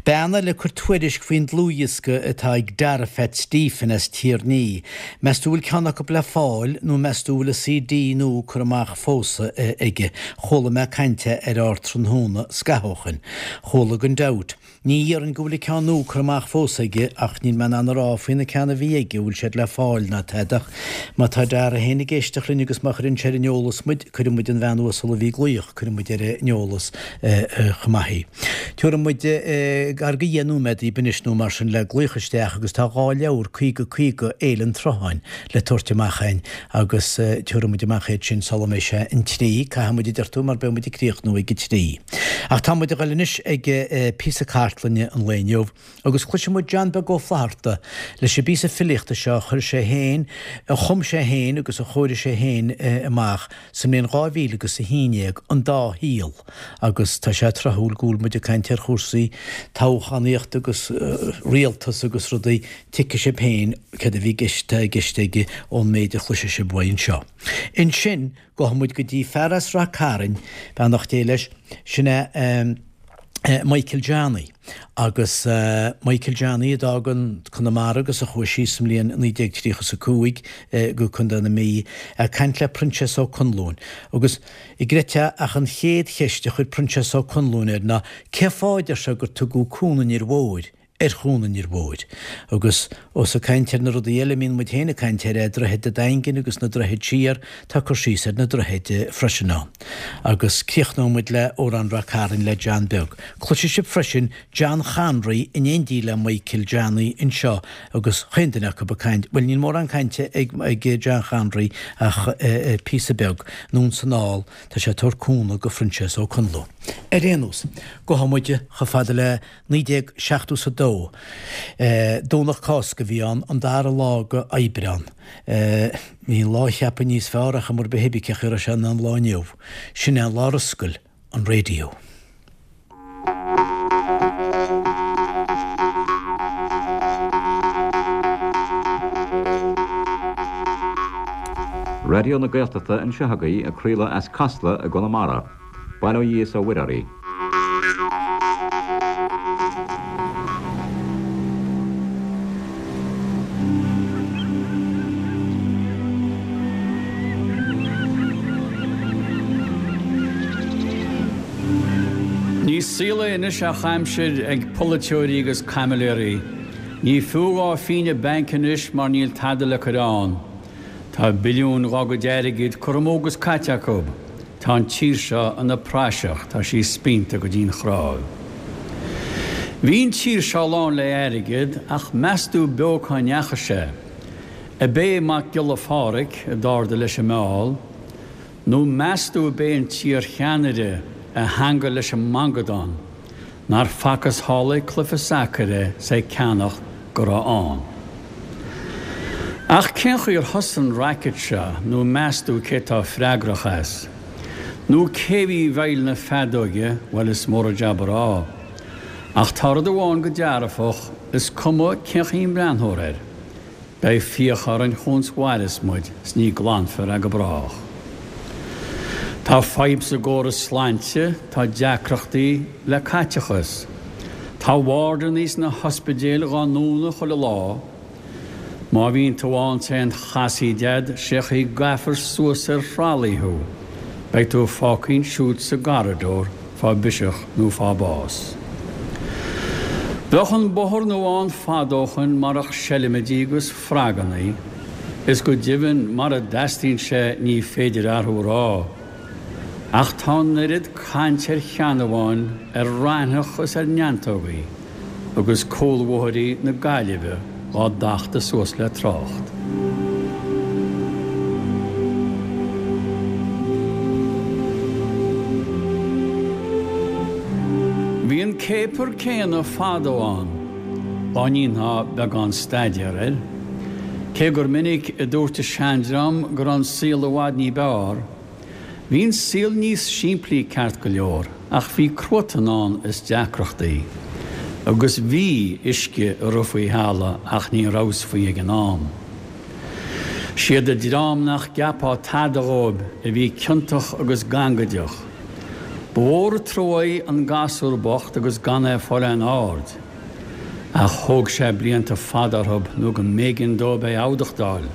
Bean eile ag cur tuairisc faoin dlúthdhiosca atá ag Dara Phat Stephen as Tír an Fhia. Meas tú bhfuil ceann acu le fáil nó meas tú bhfuil an CD nua curtha amach fós aige? Chuala mé caint air ar Tráthnóna scaitheamh ó shoin. Chuala gan dabht. Ní dhéarfainn go bhfuil an ceann nua curtha amach fós aige ach níl mé in ann a rá faoi na ceann a bhí aige an bhfuil siad le fáil ná tada ach má tá Dara féin ag éisteacht linn agus má chuireann sé ar an eolas muid, cuirfidh muid an bhean uasal a bhí ag glaoch, cuirfidh muid ar an eolas chomh maith í. Tabharfaidh muid gar do dheich nóiméad daoibh anois nó mar sin le glaoch isteach agus tá 2 leabhar 50 50 Fhéile an tSrutháin le tabhairt amach againn agus tabharfaidh muid amach iad sin sula mbeidh sé an trí, caithfidh muid a deir tú mar beidh muid ag críochnú ag a trí. Ach tá muid ag dul anois ag píosa cartlainne an lae inniu agus cloisfidh muid John Beag Ó Flaithearta leis an bpíosa filíochta seo a chuir sé féin, a chum sé féin agus a chóirigh sé féin amach sa mbliain 2000 agus a 11, An Dá Shaol agus tá sé tráthúil go bhfuil muid ag caint ar chúrsaí toghchánaíochta agus rialtas agus rudaí, tuigfidh sibh féin céard a bhí i gceist, atá i gceist aige ón méid a chloisfidh sibh uaidh anseo. Ansin, gabhfaidh muid go dtí fear as Rath Cairn, beannacht Dé leis, sin é Michael Johnny. Agus Michael Johnny a d'fhág an Conamara agus a chuaigh síos sa mbliain 1935 go Contae na Mí, ag caint le Proinsias Ó Conluain. Agus an gcreidfeá ach an chéad cheist a chuir Proinsias Ó Conluain air ná cé fáth, a deir sé, gur tugadh Cuan an Fhir Mhóir? Ar Chuan an Fhir Mhóir. Agus ós ag caint ar na rudaí eile a mbíonn muid féin ag caint air, Droichead a' Daingin agus na droichid siar, tá cur síos ar na droichid freisin ann. Agus críochnóidh muid le Amhrán Ráth Cairn le John Beag. Cloisfidh sibh freisin John Chonraí in éindí le Michael Johnny anseo agus chaon duine acu ag caint, bhuel níl mórán cainte ag John Chonraí ach píosa beag, anonn 's anall, tá sé ag tabhairt cúnamh go Proinsias Ó Conluain. Ar aon nós, gabhfaidh muid chomh fada le 1972. Domhnach Cásca a bhí ann, an dara lá go Aibreán. Bhí an lá a cheapadh níos fearr ach mar ba thuibiceach a raibh sé ná an lá inniu. Sin é an lá ar oscail an raidió. Raidió na Gaeltachta anseo agaibh ag craoladh as Casla i gConamara. Bail ó Dhia is ó Mhuire oraibh. Ní saol é anois ach aimsir ag polaiteoirí agus caimiléirí. Ní fiú dhá phínne bainc anois mar níl tada le cur ann. Tá billiúin dhá gcuid airgid curtha amú agus caite acu. Tá an tír seo ina praiseach, tá sí spíonta go dtí'n chnáimh. Bhí an tír seo lán le airgead ach meastú beo cá ndeachaigh sé? Ab é Mac Giolla Phádhraic a d'ardaigh leis an meall? Nó meastú ab é an t-iar-cheannaire a theangail leis an mangadán? Nár facthas thall ag cluiche sacair é 's ag ceannacht go raibh ann. Ach cén chaoi ar thosaigh an racket seo nó meastú cé tá freagrach as? Nó cé bhí i bhfeighil na feadóige, bhuel is mór an jab a rá. Ach tá rud amháin go dearfach, is cuma cén chaoi a mbreathnófar air. Beidh fiacha orainn chúns mhaireas muid 's ní glanfar é go brách. Tá fadhb sa gcóras slainte, tá deacrachtaí le caiteachas. Tá wardannaí sna hospidéil dhá ndúnadh chuile lá. Má bhíonn tú ann 's aon chasaoid a'd, sé chaoi gcaithfear suas ar thralaí thú. Beidh tú fágtha ansiúd sa gcorridor fá bhiseach nó fá bás. Bheadh an bóthar nua ann fad ó shoin marach seilmidí agus fragannaí, is go deimhin mara dteastaíonn sé ní féidir athrú a rá. Ach tá an oiread caint ar sheanamháin, ar raithneach is ar neantógaí. agus cúlbhóithrí na Gaillimhe dhá dtachtadh suas le trácht. Bhí an céapar céanna fadó ann, dá ndéanfá beagán staidéar air, cé gur minic a dúirt an seandream go raibh an saol i bhfad ní b'fhearr, Bhí an saol níos simplí ceart go leor ach bhí cruatan ann is deacrachtaí. Agus bhí uisce ag rith faoi thalamh ach ní rabhas faoi ag an am. Siad an dream nach gceapfá tada dhóibh a bhí ciontach agus gangaideach. Ba mhór an truaí an gasúr bocht agus gan é ag fáil aon aird. Ach thóg sé blianta fada orthub nó go mb'éigean dóibh é adhlacadh.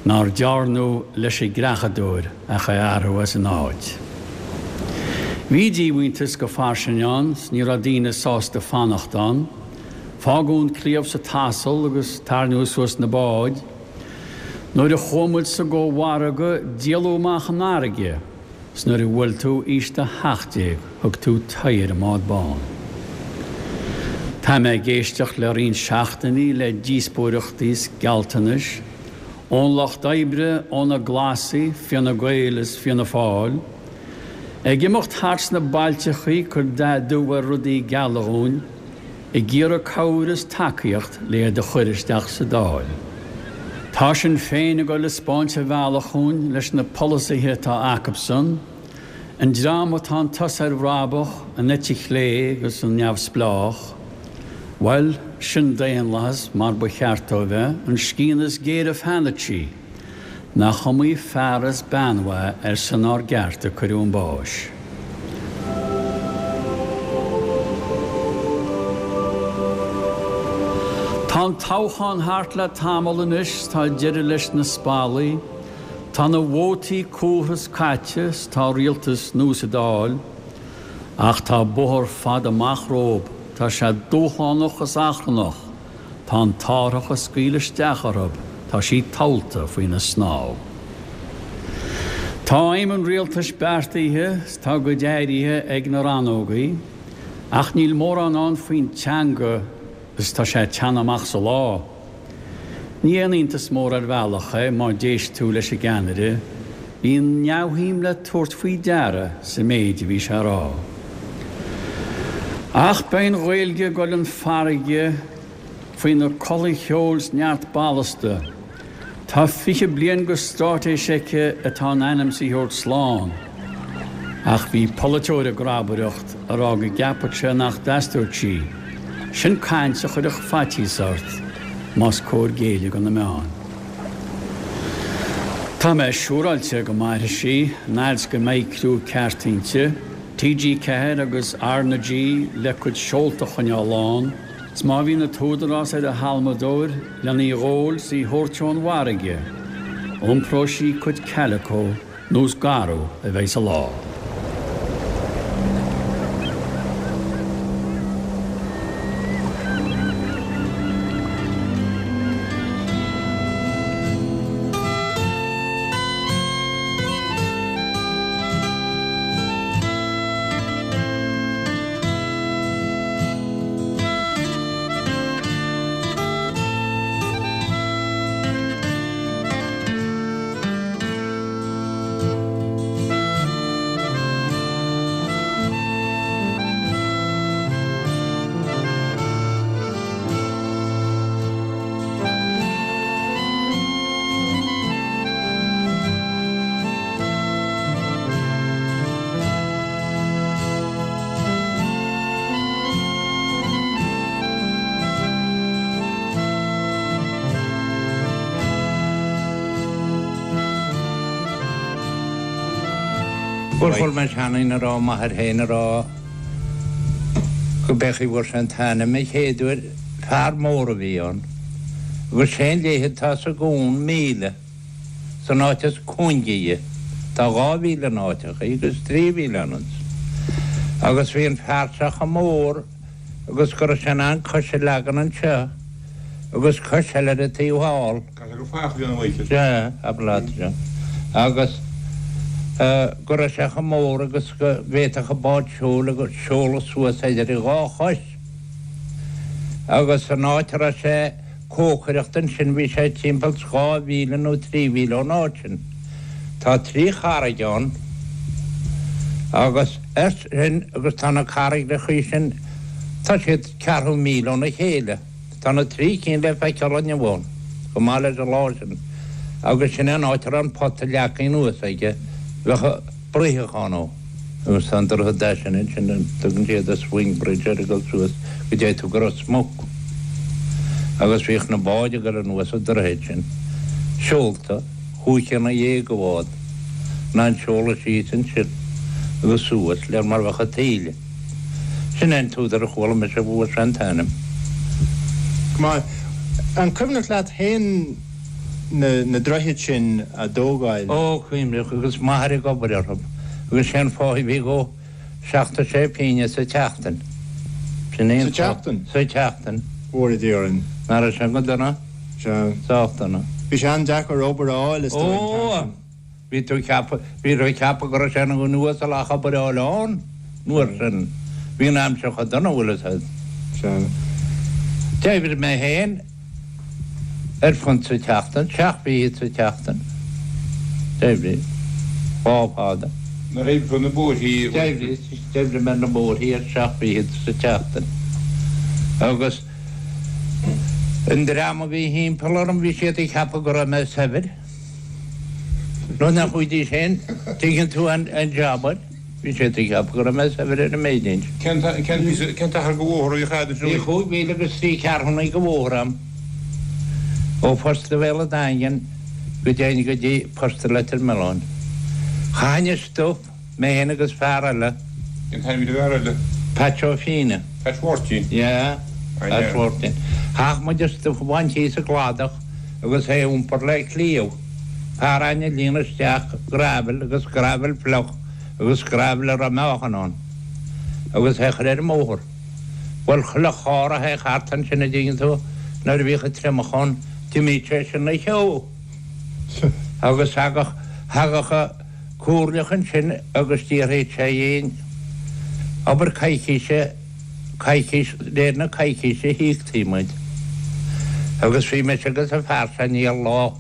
Nár dearnadh leis an gcreachadóir ach é a athrú as an áit. Bhí díomhaointeas go fairsing ann 's ní raibh daoine sásta fanacht ann. Fágadh an cliabh sa t-asal agus tairneadh suas na báid. Nuair a chuaigh muid sa gcomhargadh díoladh amach an fharraige. 'S nuair a bhuail tú aois do 17 thug tú t'aghaidh ar an mbád bán. Tá mé ag éisteacht le roinnt seachtainí le díospóireachtaí 's gealltanais ón Lucht Oibre, ó na Glasaigh, Fianna Gael is Fianna Fáil. Ag imeacht thart sna bailteachaí ag cur dath dubh ar rudaí geala dhúinn. Ag iarraidh cabhair is tacaíocht le iad a chuir isteach sa Dáil. Tá Sinn Féin ag dul ag 'spáint an bhealach dhúinn leis na polasaithe atá acubsan, an dream atá an tusa ar bhrabach, an eite chlé agus an neamhspleách. Bhuel, sin daonlathas mar ba cheart dó bheith, an scian is géire feanainsí. Nach iomaí fear is bean mhaith ar son ár gceart a cuireadh 'un báis. Tá an toghchán thart le tamall anois 's tá deireadh leis na spallaí, tá na vótaí cúrtha 's caite 's tá rialtas nua sa Dáil, ach tá bóthar fada amach rompu. tá sé dúshlánach is achrannach, tá an t-árthach ag scaoileadh isteach orthu, tá sí tomhalta faoina snámh. Tá aidhm an rialtais beartaithe 's tá a gcuid áirithe ag na rannógaí, ach níl mórán ann faoin teanga is tá sé ag teannadh amach sa lá. Ní aon iontas mór ar bhealach é má d'éist tú leis an gceannaire, bhí an neamhshuim le tabhairt faoi deara sa méid a bhí sé a rá. Ach beidh an Ghaeilge ag dul an farraige faoina culaith cheoil 's neart ballasta. Tá 20 bliain go stráitéis aici atá in ainm 's í thabhairt slán. Ach bhí polaiteoir ag grabaireacht a rá go gceapfadh sé nach dteastódh sí. Sin caint a chuirfeadh faitíos ort, más cóir géilleadh do na meáin. Tá mé siúráilte go mairfidh sí, an fhad 's go mbeidh criú ceart inti, TG4 agus R na G le cuid seolta a choinneáil lán, 's má bhíonn an t-údarás ar a halmadóir len í dh'ól 's í thabhairt ón bhfarraige, iompróidh sí cuid calico nó is garbh a bheidh sa lá. Bhuel, chuala mé seanduine a rá, m'athair féin a rá, go b'é chaoi a bhfuair sé an t-ainm an chéad uair, fear mór a bhí ann, agus sé an leithead atá sa gcuan, míle. San áit is cúinge dhe. Tá 2,000 in áiteachaí agus 3,000 ann. Agus bhí an fear seo chomh mór agus go raibh sé in ann cois a leagan anseo agus cois eile ar an taobh thall. Caithfidh gur fathach a bhí ann a Mhichíl. Sea, abair leat, sea. Agus go raibh sé chomh mór agus go bhféadfadh an bád seoil agus seoladh suas idir a dhá chois. Agus an áit a raibh sé. cócaireacht ansin bhí sé timpeall 2 mhíle nó 3 mhíle ón áit sin. Tá trí charraig ann agus air sin agus tá na carraigreachaí sin tá siad ceathrú míle óna chéile. Tá na trí cinn le feiceáil inniu ann chomh maith leis an lá sin agus sin é an áit a raibh an pota leagtha anuas aige bheadh bruitheadh ann ó. Agus tá an droichead deas sin ansin, a dtugann siad an swing bridge air ag dul suas go dtéigh tú go Ros Muc. Agus bhíodh na báid ag dul anuas an droichead sin, seolta, chúig chéanna dhéag a bhád, in ann seoladh síos ansin agus suas léir mar bheadh an taoille. Sin é an t-údar a chuala mise a bhfuair sé an t-ainm. Go maith. An cuimhneach leat féin na droichid sin a dtógáil. Ó, cuimhneach, agus m'athair ag obair orthu, agus sé an pháigh a bhí dhó, 76 pingine sa tseachtain. Sin é an Sa tseachtain? Sa tseachtain. Mhóra Dia orainn. Nach raibh sé go dona? Sea. Sách dona. Bhí sé an-deacair obair a fháil, is dóigh, an t-am Ó! sin. Bhí tú ag ceapadh, bhí tú ag ceapadh go raibh sé ina dhuine uasal ach obair a fháil ann, an uair sin. Bhí an aimsir chomh dona, bhfuil fhios a'd. Sea. D'oibrigh mé féin ar phunt sa tseachtain, seacht bhfichid sa tseachtain. D'oibrigh. Lá fada. Nuair a oibrigh tú ar na bóithrí. D'oibrigh, d'oibrigh mé ar na bóithrí ar seacht bhfichid sa tseachtain. Agus an dream a bhí thimpeall orm, bhí siad ag ceapadh go raibh mé saibhir. Nó nach bhfuighdís féin, tuigeann tú, an jab air. Bhí siad ag ceapadh go raibh mé saibhir ar an méid sin. Cén t-achar de bhóthar a bhíodh a'd ansin? Bhí chúig mhíle agus trí ceathrúna de bhóthar a'm ó Phosta Bhéal an Daingin go dtéinn go dtí Posta Leitir Mealláin. Chaithinn an stuif Mé fhéin agus fear eile. Cén t-ainm a bhí ar an bhfear eile? Patch Ó Fianna. Patch Mháirtín? Yeah, Patch Mháirtín. Chaitheadh muid an stuif a bhaint thíos sa gcladach agus é a iompar le cliabh. Fear againn ag líonadh isteach gravel agus gravel fliuch agus gravel a raibh meáchan ann agus é a chur ar an mbóthar. Bhuel, chuile charr a théadh thart ansin, a dtuigeann tú, nuair a bhíodh an triomach ann, d'imíodh sé sin 'na cheo. Agus thagadh, thagadh an comhairleach ansin agus d'fhiafraíodh sé dhínn, abair coicíse, coicís, réir na coicíse a híoctaí muid. Agus bhí mise agus an fear seo Niall lá,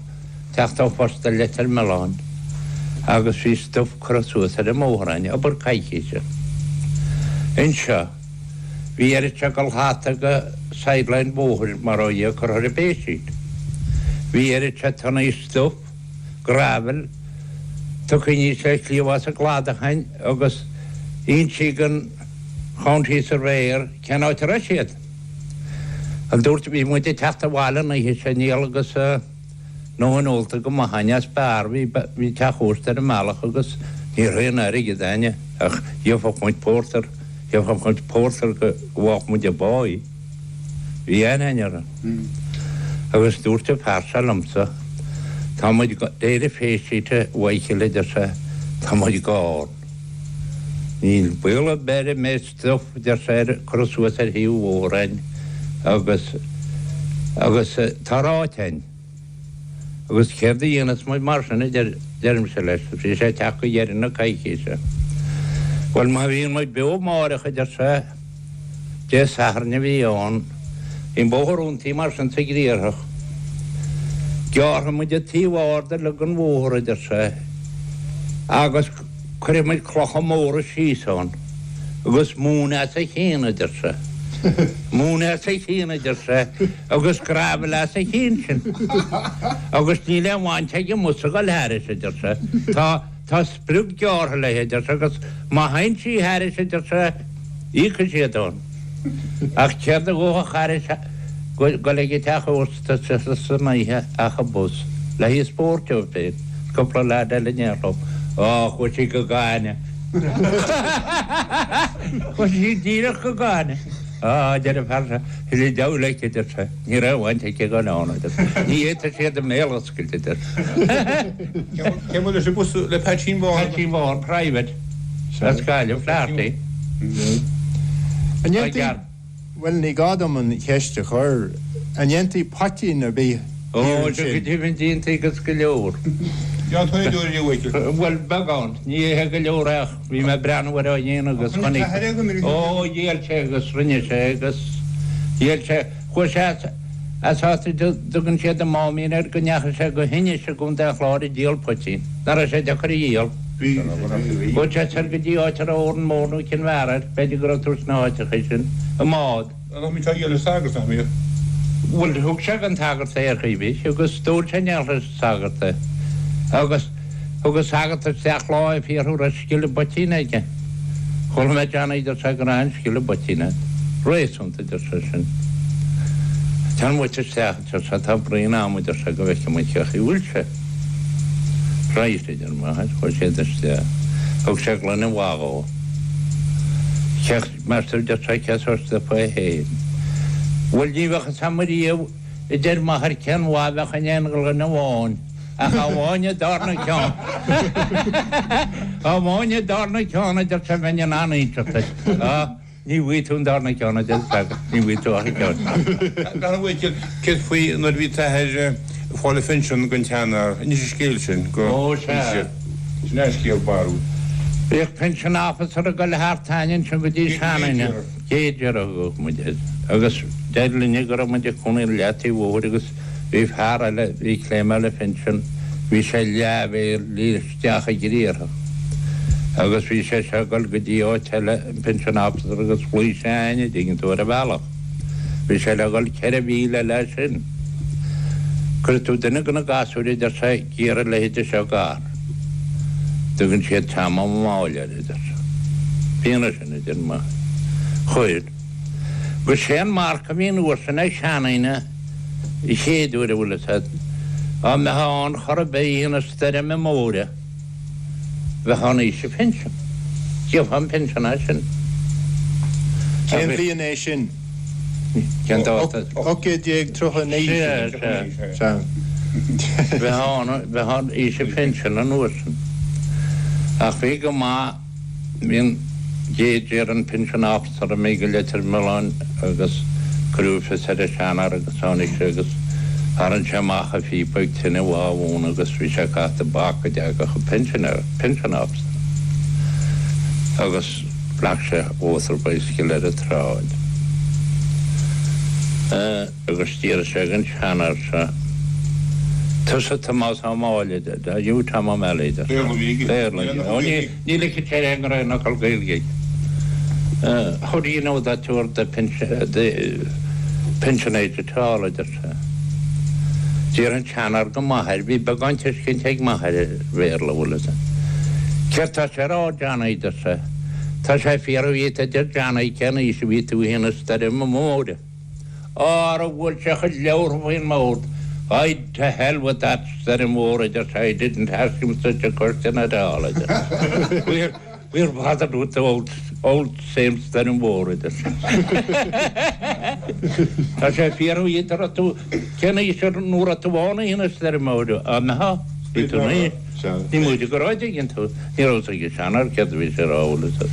teacht ó phost i Leitir Mealláin agus bhí stuif curtha suas ar an mbóthar againn, abair coicíse. Anseo, bhí oiread seo de shlata de sideline bóthair mar ó Dhia curtha ar an bpéisín. Bhí oiread seo tonnaí stuif, gravel, tugtha aníos le cliabh as an gcladach againn agus insíodh don County Surveyor cén áit a raibh siad. An dúirt, bhí muid ag teacht abhaile an oíche sin, Niall agus a ndóthain ólta go maith againn as beár, bhí, bhí teach ósta ar an mbealach agus ní raibh aon airgead againne ach gheobhadh muid pórtar, gheobhadh muid pórtar go bhfaigheadh muid an báí. Bhí aithne againn orthu. Agus dúirt an fear seo liomsa, tá muid, réir an phaysheet a Mhichíl a deir sé, tá muid gann. Níl baol ar bith ar an méid stuif, a deir sé, ar curtha suas ar thaobh an bhóthair againn agus, agus tá ráite againn. Agus céard a dhéanfas muid mar sin, a deir, deirimse leis, bhí sé ag teacht go dheireadh na coicíse. Bhuel, má bhíonn muid beo amáireach, a deir sé, Dé Sathairn a bhí ann, bhí an bóthar dúntaí mar sin sa ghriarthach. Gearrfaidh muid an taobh ard uilig den bhóthar, a deir sé, agus cuirfidh muid clocha móra síos ann agus móin as a chionn, a deir sé. Móin as a chionn, a deir sé, agus gravel as a chionn sin. Agus níl aon bhaint ag an mbus a dhul thairis, a deir sé. Tá. Tá sprioc gearrtha léi, a deir sé, agus má théann sí thairis, a deir sé, íocfaidh siad ann. Ach céard a ghabhfadh thairis dul ag an teach ósta san oíche ach an bus, le haghaidh spóirt dóibh féin, is cúpla leaid eile in éineacht leo. Á, chuaigh sí go gainne. Chuaigh sí díreach go gainne. Á, a deir an fear seo, thuilleadh deabhail aici, a deir sé, ní raibh baint aici ag an ann, a deir sé. Ní fhéadfadh siad a mbéal a oscailt, a deir sé. Cé mba leis an bus le Peaitsín Bán? Peaitsín Bán, private, as Gaillimh, Flaherty. An ndéantaí, bhuel ní gá dom an cheist a chur, an ndéantaí poitín ar bith thiar ansin? Ó, go deimhin déantaí agus go leor. Déan tú aon uair a Mhichíl? Bhuel, beagán. Ní hé go leor ach bhí mé ag breathnú air á dhéanamh agus chonaic. Ó, dhíol sé agus rinne sé agus dhíol sé, chuaigh sé as. As áit a dtugann siad an Máimín air go ndeachaigh sé go hInis i gContae an Chláir ag díol poitín. Nach raibh sé deacair a dhíol. Chuaigh sé soir go dtí áit a raibh Órán Mór nó Cill Bheara air, b'fhéidir go raibh tú sna háiteacha sin, i mbád. Nach mbíodh sé á dhíol leis an sagart, nach mbíodh? Bhuel, thug sé don tsagart é ar chaoi ar bith agus d'ól sé in éineacht leis an sagart é. Agus thug an sagart isteach lá é ag fiafraí an raibh scil i bpoitín aige. Chuala mé Johnny, deir sé, go raibh an-scil i bpoitín agat. Réasúnta, a deir sé sin. Téann muid isteach, a deir sé, tá braon a'm, a deir sé, go bhfeicfidh muid cé chaoi bhfuil sé. Right, a deir m'athair, chuaigh siad isteach. Thug sé gloine mhaith dhó. Cé, meas tú, a deir sé, cén sórt stuif é féin. Bhuel, ní bheadh fhios a'm ariamh, a deir m'athair, cén mhaith a bheadh in aon ghloine amháin. Ach amháin an darna ceann. Amháin an darna ceann, a deir sé, bheinn in ann inseacht duit. Á, ní bhfaighidh tú an darna ceann, a deir an sagart, ní bhfaighidh tú ach an ceann. Dar ndóigh, céard faoi nuair a bhí t'athair ag fáil a phinsean den tseanfhear? Inis an scéal sin go Ó, sea. Sin é an scéal barrúil. Bhíodh pension officer ag dul thart againn ansin go dtí seanduine, Gager a thugadh muid air, agus deir linne go raibh muid ag cónaí ar leataobh bhóthair agus Bhí fear eile, bhí ag claimeáil a phinsean, bhí sé leathmhíle isteach i gCriarthach agus bhí sé seo ag dul go dtí áit eile, an pension officer agus ghlaoigh sé a'ainn, a' dtuigeann tú, ar an bhealach. Bhí sé le dhul 4 mhíle eile as sin. Cuirfidh tú duine de na gasúir, a deir sé, ag iarraidh a leithéide seo d'fhear. Tugann siad Tom Ó Máille air, a deir sé. B'ionadh sin, a deir m'athair. Chuir. Agus sé an marc a bhí an uair sin ag seandaoine, an chéad uair a bhfuil fhios a'd, dá mbeifeá ann chor ar bith oíche na stoirme móire, bheifeá in aois an phinsin. Gheofá an pinsean as sin. Cén bhliain é sin? Cén dáta? 1839. Sea, sea. Sea. Bheifeá ann, bheifeá in aois an phinsin an uair sin. Ach bhí go maith, bhí an Gager, an pension officer, imithe go Leitir Mealláin. agus cuireadh fios ar an seanfhear agus tháinig sé agus tharraing sé amach a phíopa ag tine mhaith ann agus bhí sé ag caitheamh tobac go dtagadh an pensioner, pension officer, agus ghlac sé motor bicycle ar an tsráid. Agus d'iarr sé den seanfhear seo, Tusa Tomás Ó Máille, are you Tom O'Malley? Béarla a bhí aige. Béarla a bhí aige. Ó ní, ní ligfeadh sé aon aon fhocal Gaeilge aige. How do you know that you're the the pension age at all, a deir sé. D'iarr an seanfhear go m'athair, bhí beagán tuiscint ag m'athair ar Bhéarla, bhfuil fhios a'd. Céard tá sé a rá, Johnny, a deir sé. Tá sé ag fiafraí dhíot, a deir Johnny, cén aois a bhí tú féin an stoirm mhóir. Ara bhuail sé a chuid leabhartha faoin mbord. I'd to hell with that stoirm mhór, a deir sé, I didn't ask him such a question at all, a deir sé. We're, we're bothered with the old, old same stoirm mhór, a deir sé. Tá sé ag fiafraí dhíot an raibh tú, cén aois nó raibh tú ann oíche na stoirme móire? Á mbeifeá? Bhí tú naoi. Ní móide go raibh, an dtuigeann tú. Ní raibh fhios ag an seanfhear céard a bhí sé a rá, bhfuil fhios a'd.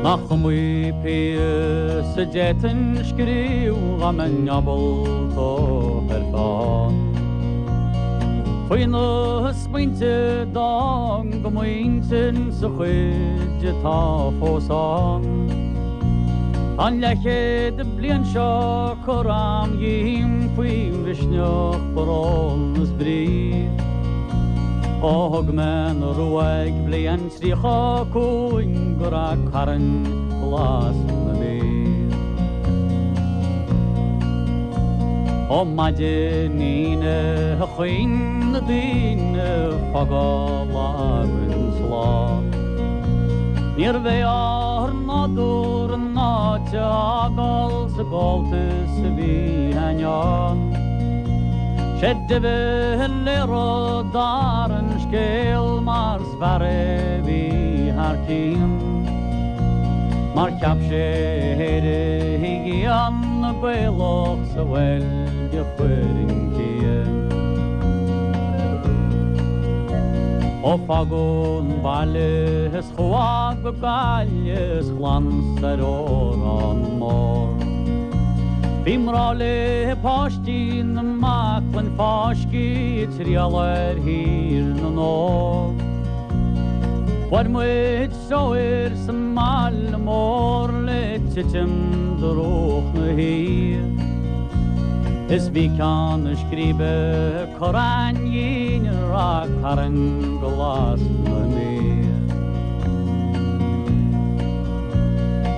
Nach iomaí píosa a d'fhéadfainn scríobh dá mbeinn ábalta ar pheann. Faoi na smaointe d'fhan go m'intinn sa chuid atá fós ann. Tá an leathchéad bliain seo curtha a'm dhíom faoi mhisneach, brón is brí. Ó thug mé an ruaig bliain 35 go Ráth Cairn Glas na Mí. Ó maidin Aoine a chaoin na daoine fágáil againn slán. Níorbh é ár nádúr an áit a fhágáil sa gcomhaltas a bhí againn ann. Sé de Valera d'fhear an scéil mar 's fear é bhí thar cionn. Mar cheap sé éirígí an-Ghaelach sa Bheilg a chuir an cian. Ó fágadh an baile is chuadh go Gaillimh is glan soir ó Órán Mór. Bhí mná le páistí na mbaclainn fáiscthe ag triall ar Thír na nÓg. Fuair muid treoir sa mbaile mór le titim drúcht na hoíche. Is bhí Ceann Scríbe curtha dhínn i Ráth Cairn Glas na Mí.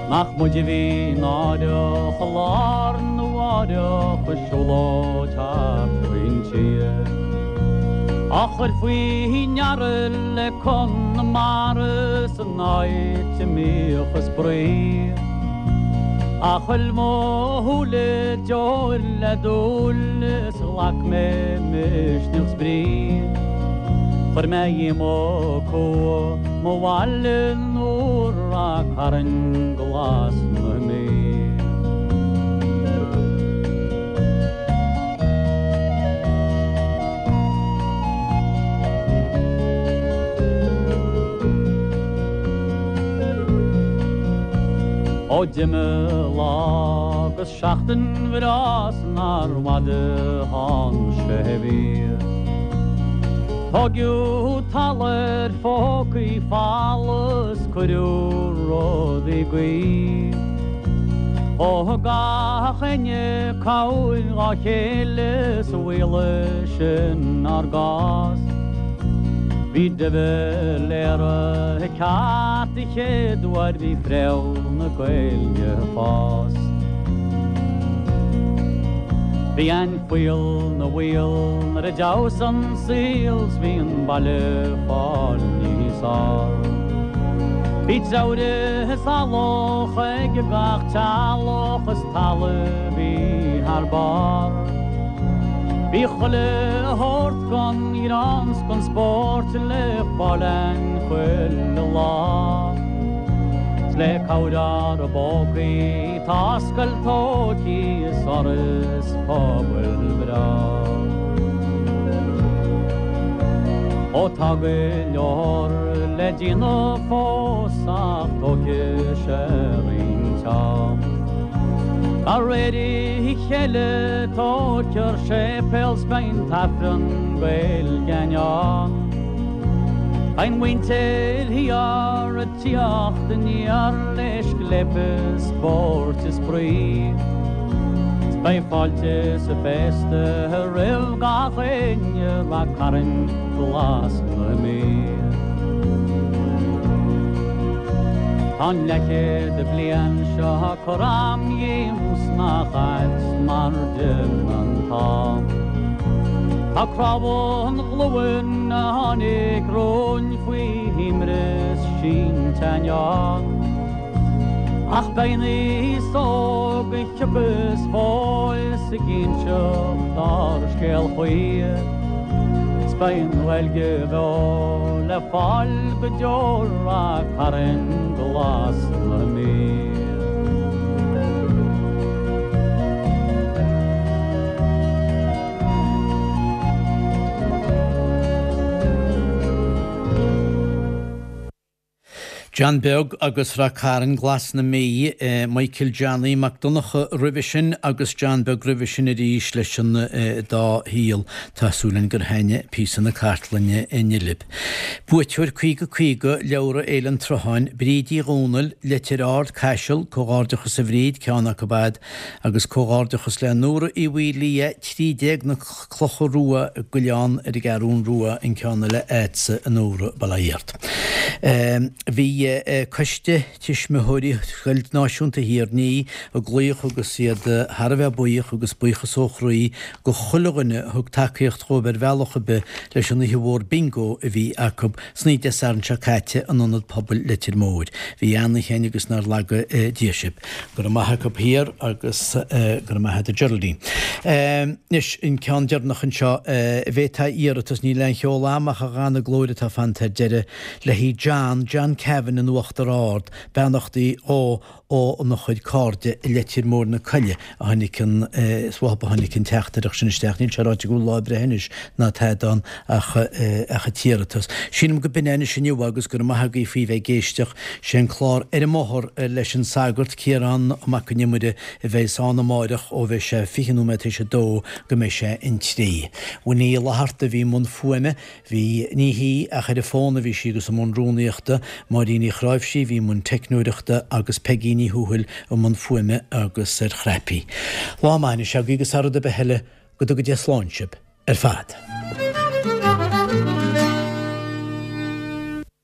Nach muid a bhí náireach i lá arna mháireach ag siúlóid thart faoin tír. Á chur faoi ndeara le Conamara san áit a mbíodh a spraoi. Ach thuill mo shúile deoir le dúil is ghlac mé misneach 's brí. Chuir mé dhíom cumha mo bhaile úr Ráth Cairn Glas na Mí. Ó d'imigh lá agus seachtain bhreá 's nár bhfada thánn sé mhí. Tóigeadh talamh ar phócaí folamh 's cuireadh rudaí gaoith. Ó thug gach éinne cabhair dhá chéile 's mhaolaigh sin ár gcás. Bhí de Valera ceart an chéad uair bhí fréamh na Gaeilge ag fás. Bhí an fuíoll 'na bhaol nuair a d'fheabhas an saol 's bhí an baile fáil níos fhearr. Bhí treabhradh is eallach ag gach teaghlach is talamh bhí thar barr. Bhí chuile shórt gon ghreann 's gon spórt le fáil a'inn chuile lá. 'S le cabhair ár bpócaí tá scoil tógtha is áras pobail breá. Ó tá go leor le déanamh fós ach tógfaidh sé roinnt am. De réir a chéile tógfar séipéal 's beidh an tAifreann Gaeilge ann. Beidh an mhuintir thiar ag tíocht aniar le scléip is spóirt is spraoi. 'S beidh fáilte 's féasta roimh gach éinne Rath Cairn Glas na Mí. Tá an leathchéad bliain seo curtha a'm dhíom 's nach ait mar d'imigh an t-am. Tá cnámha an ghlúin a tháinig romhainn faoi imreas sínte ann. Ach beidh an aos óg a thiocfas fós ag inseacht ár scéal choíche 's beidh an Ghaeilge bheo le fáil go deo Rath Cairn Glas na Mí. John Beag agus Rath Cairn Glas na Mí, Michael Johnny Mac Donncha roimhe sin agus John Beag roimhe sin arís leis an dá shaol. Tá súil againn gur thaitnigh píosa na cartlainne inniu libh. Buaiteoir 50 50, Leabhra Fhéile an tSrutháin, Bríd Uí Dhomhnaill, Leitir Ard, Caiseal, Comhghairdeachas a Bhríd, ceann acu a'd, agus comhghairdeachas le Nóra Uí Mhaoildhia, 13 na Clocha Rua, Gaileán ar an gCeathrún Rua, an ceann eile a'dsa a Nóra, bail ó Dhia ort. Bhí Coiste Tuismitheoirí Scoil Náisiúnta Thír an Fhia ag glaoch agus iad thar a bheith buíoch agus buíochas ó chroí go chuile dhuine a thug tacaíocht dhóibh ar bhealach ar bith leis an oíche mhór Bingo a bhí acu san oíche Dé Sathairn seo caite in Ionad Pobail Leitir Móir. Bhí an-oíche againn agus nár laga Dia sibh. Go raibh maith acu thiar agus go raibh maith agat a Geraldine. Anois, an ceann deireanach anseo, bhféadfá iarratas, níl aon cheol a'm ach a dhana glóir atá fanta ar deireadh, le haghaidh John, John Cavan in Uachtar Ard, beannachtaí dhó óna chuid cairde i Leitir Móir na Coille a tháinig an, is uathu a tháinig an teachtaireacht sin isteach, níl sé ráite go bhfuil lá breithe anois ná tada ann ach ach an t-iarratas. Sílim go b'in é anois inniu agus go raibh maith agaibh faoi bheith ag éisteacht. Sé an clár Ar an mBóthar leis an Sagart, Ciarán Mac an Iomaire, a bheas ann amáireach ó bheidh sé 20 nóiméad théis a dó go mbeidh sé an trí. Winnie Uí Fhlatharta a bhí i mbun fuaime, bhí, ní hí ach ar an bhfón a bhí sí agus i mbun rúnaíochta, Máirín Uí Chráimhsí a bhí i mbun teicneoireachta agus Peigí Ní Thuathail i mbun fuaime agus ar chnaipí. Lá maith anois agaibh agus thar rud ar bith eile, go dtuga Dia slán sibh ar fad.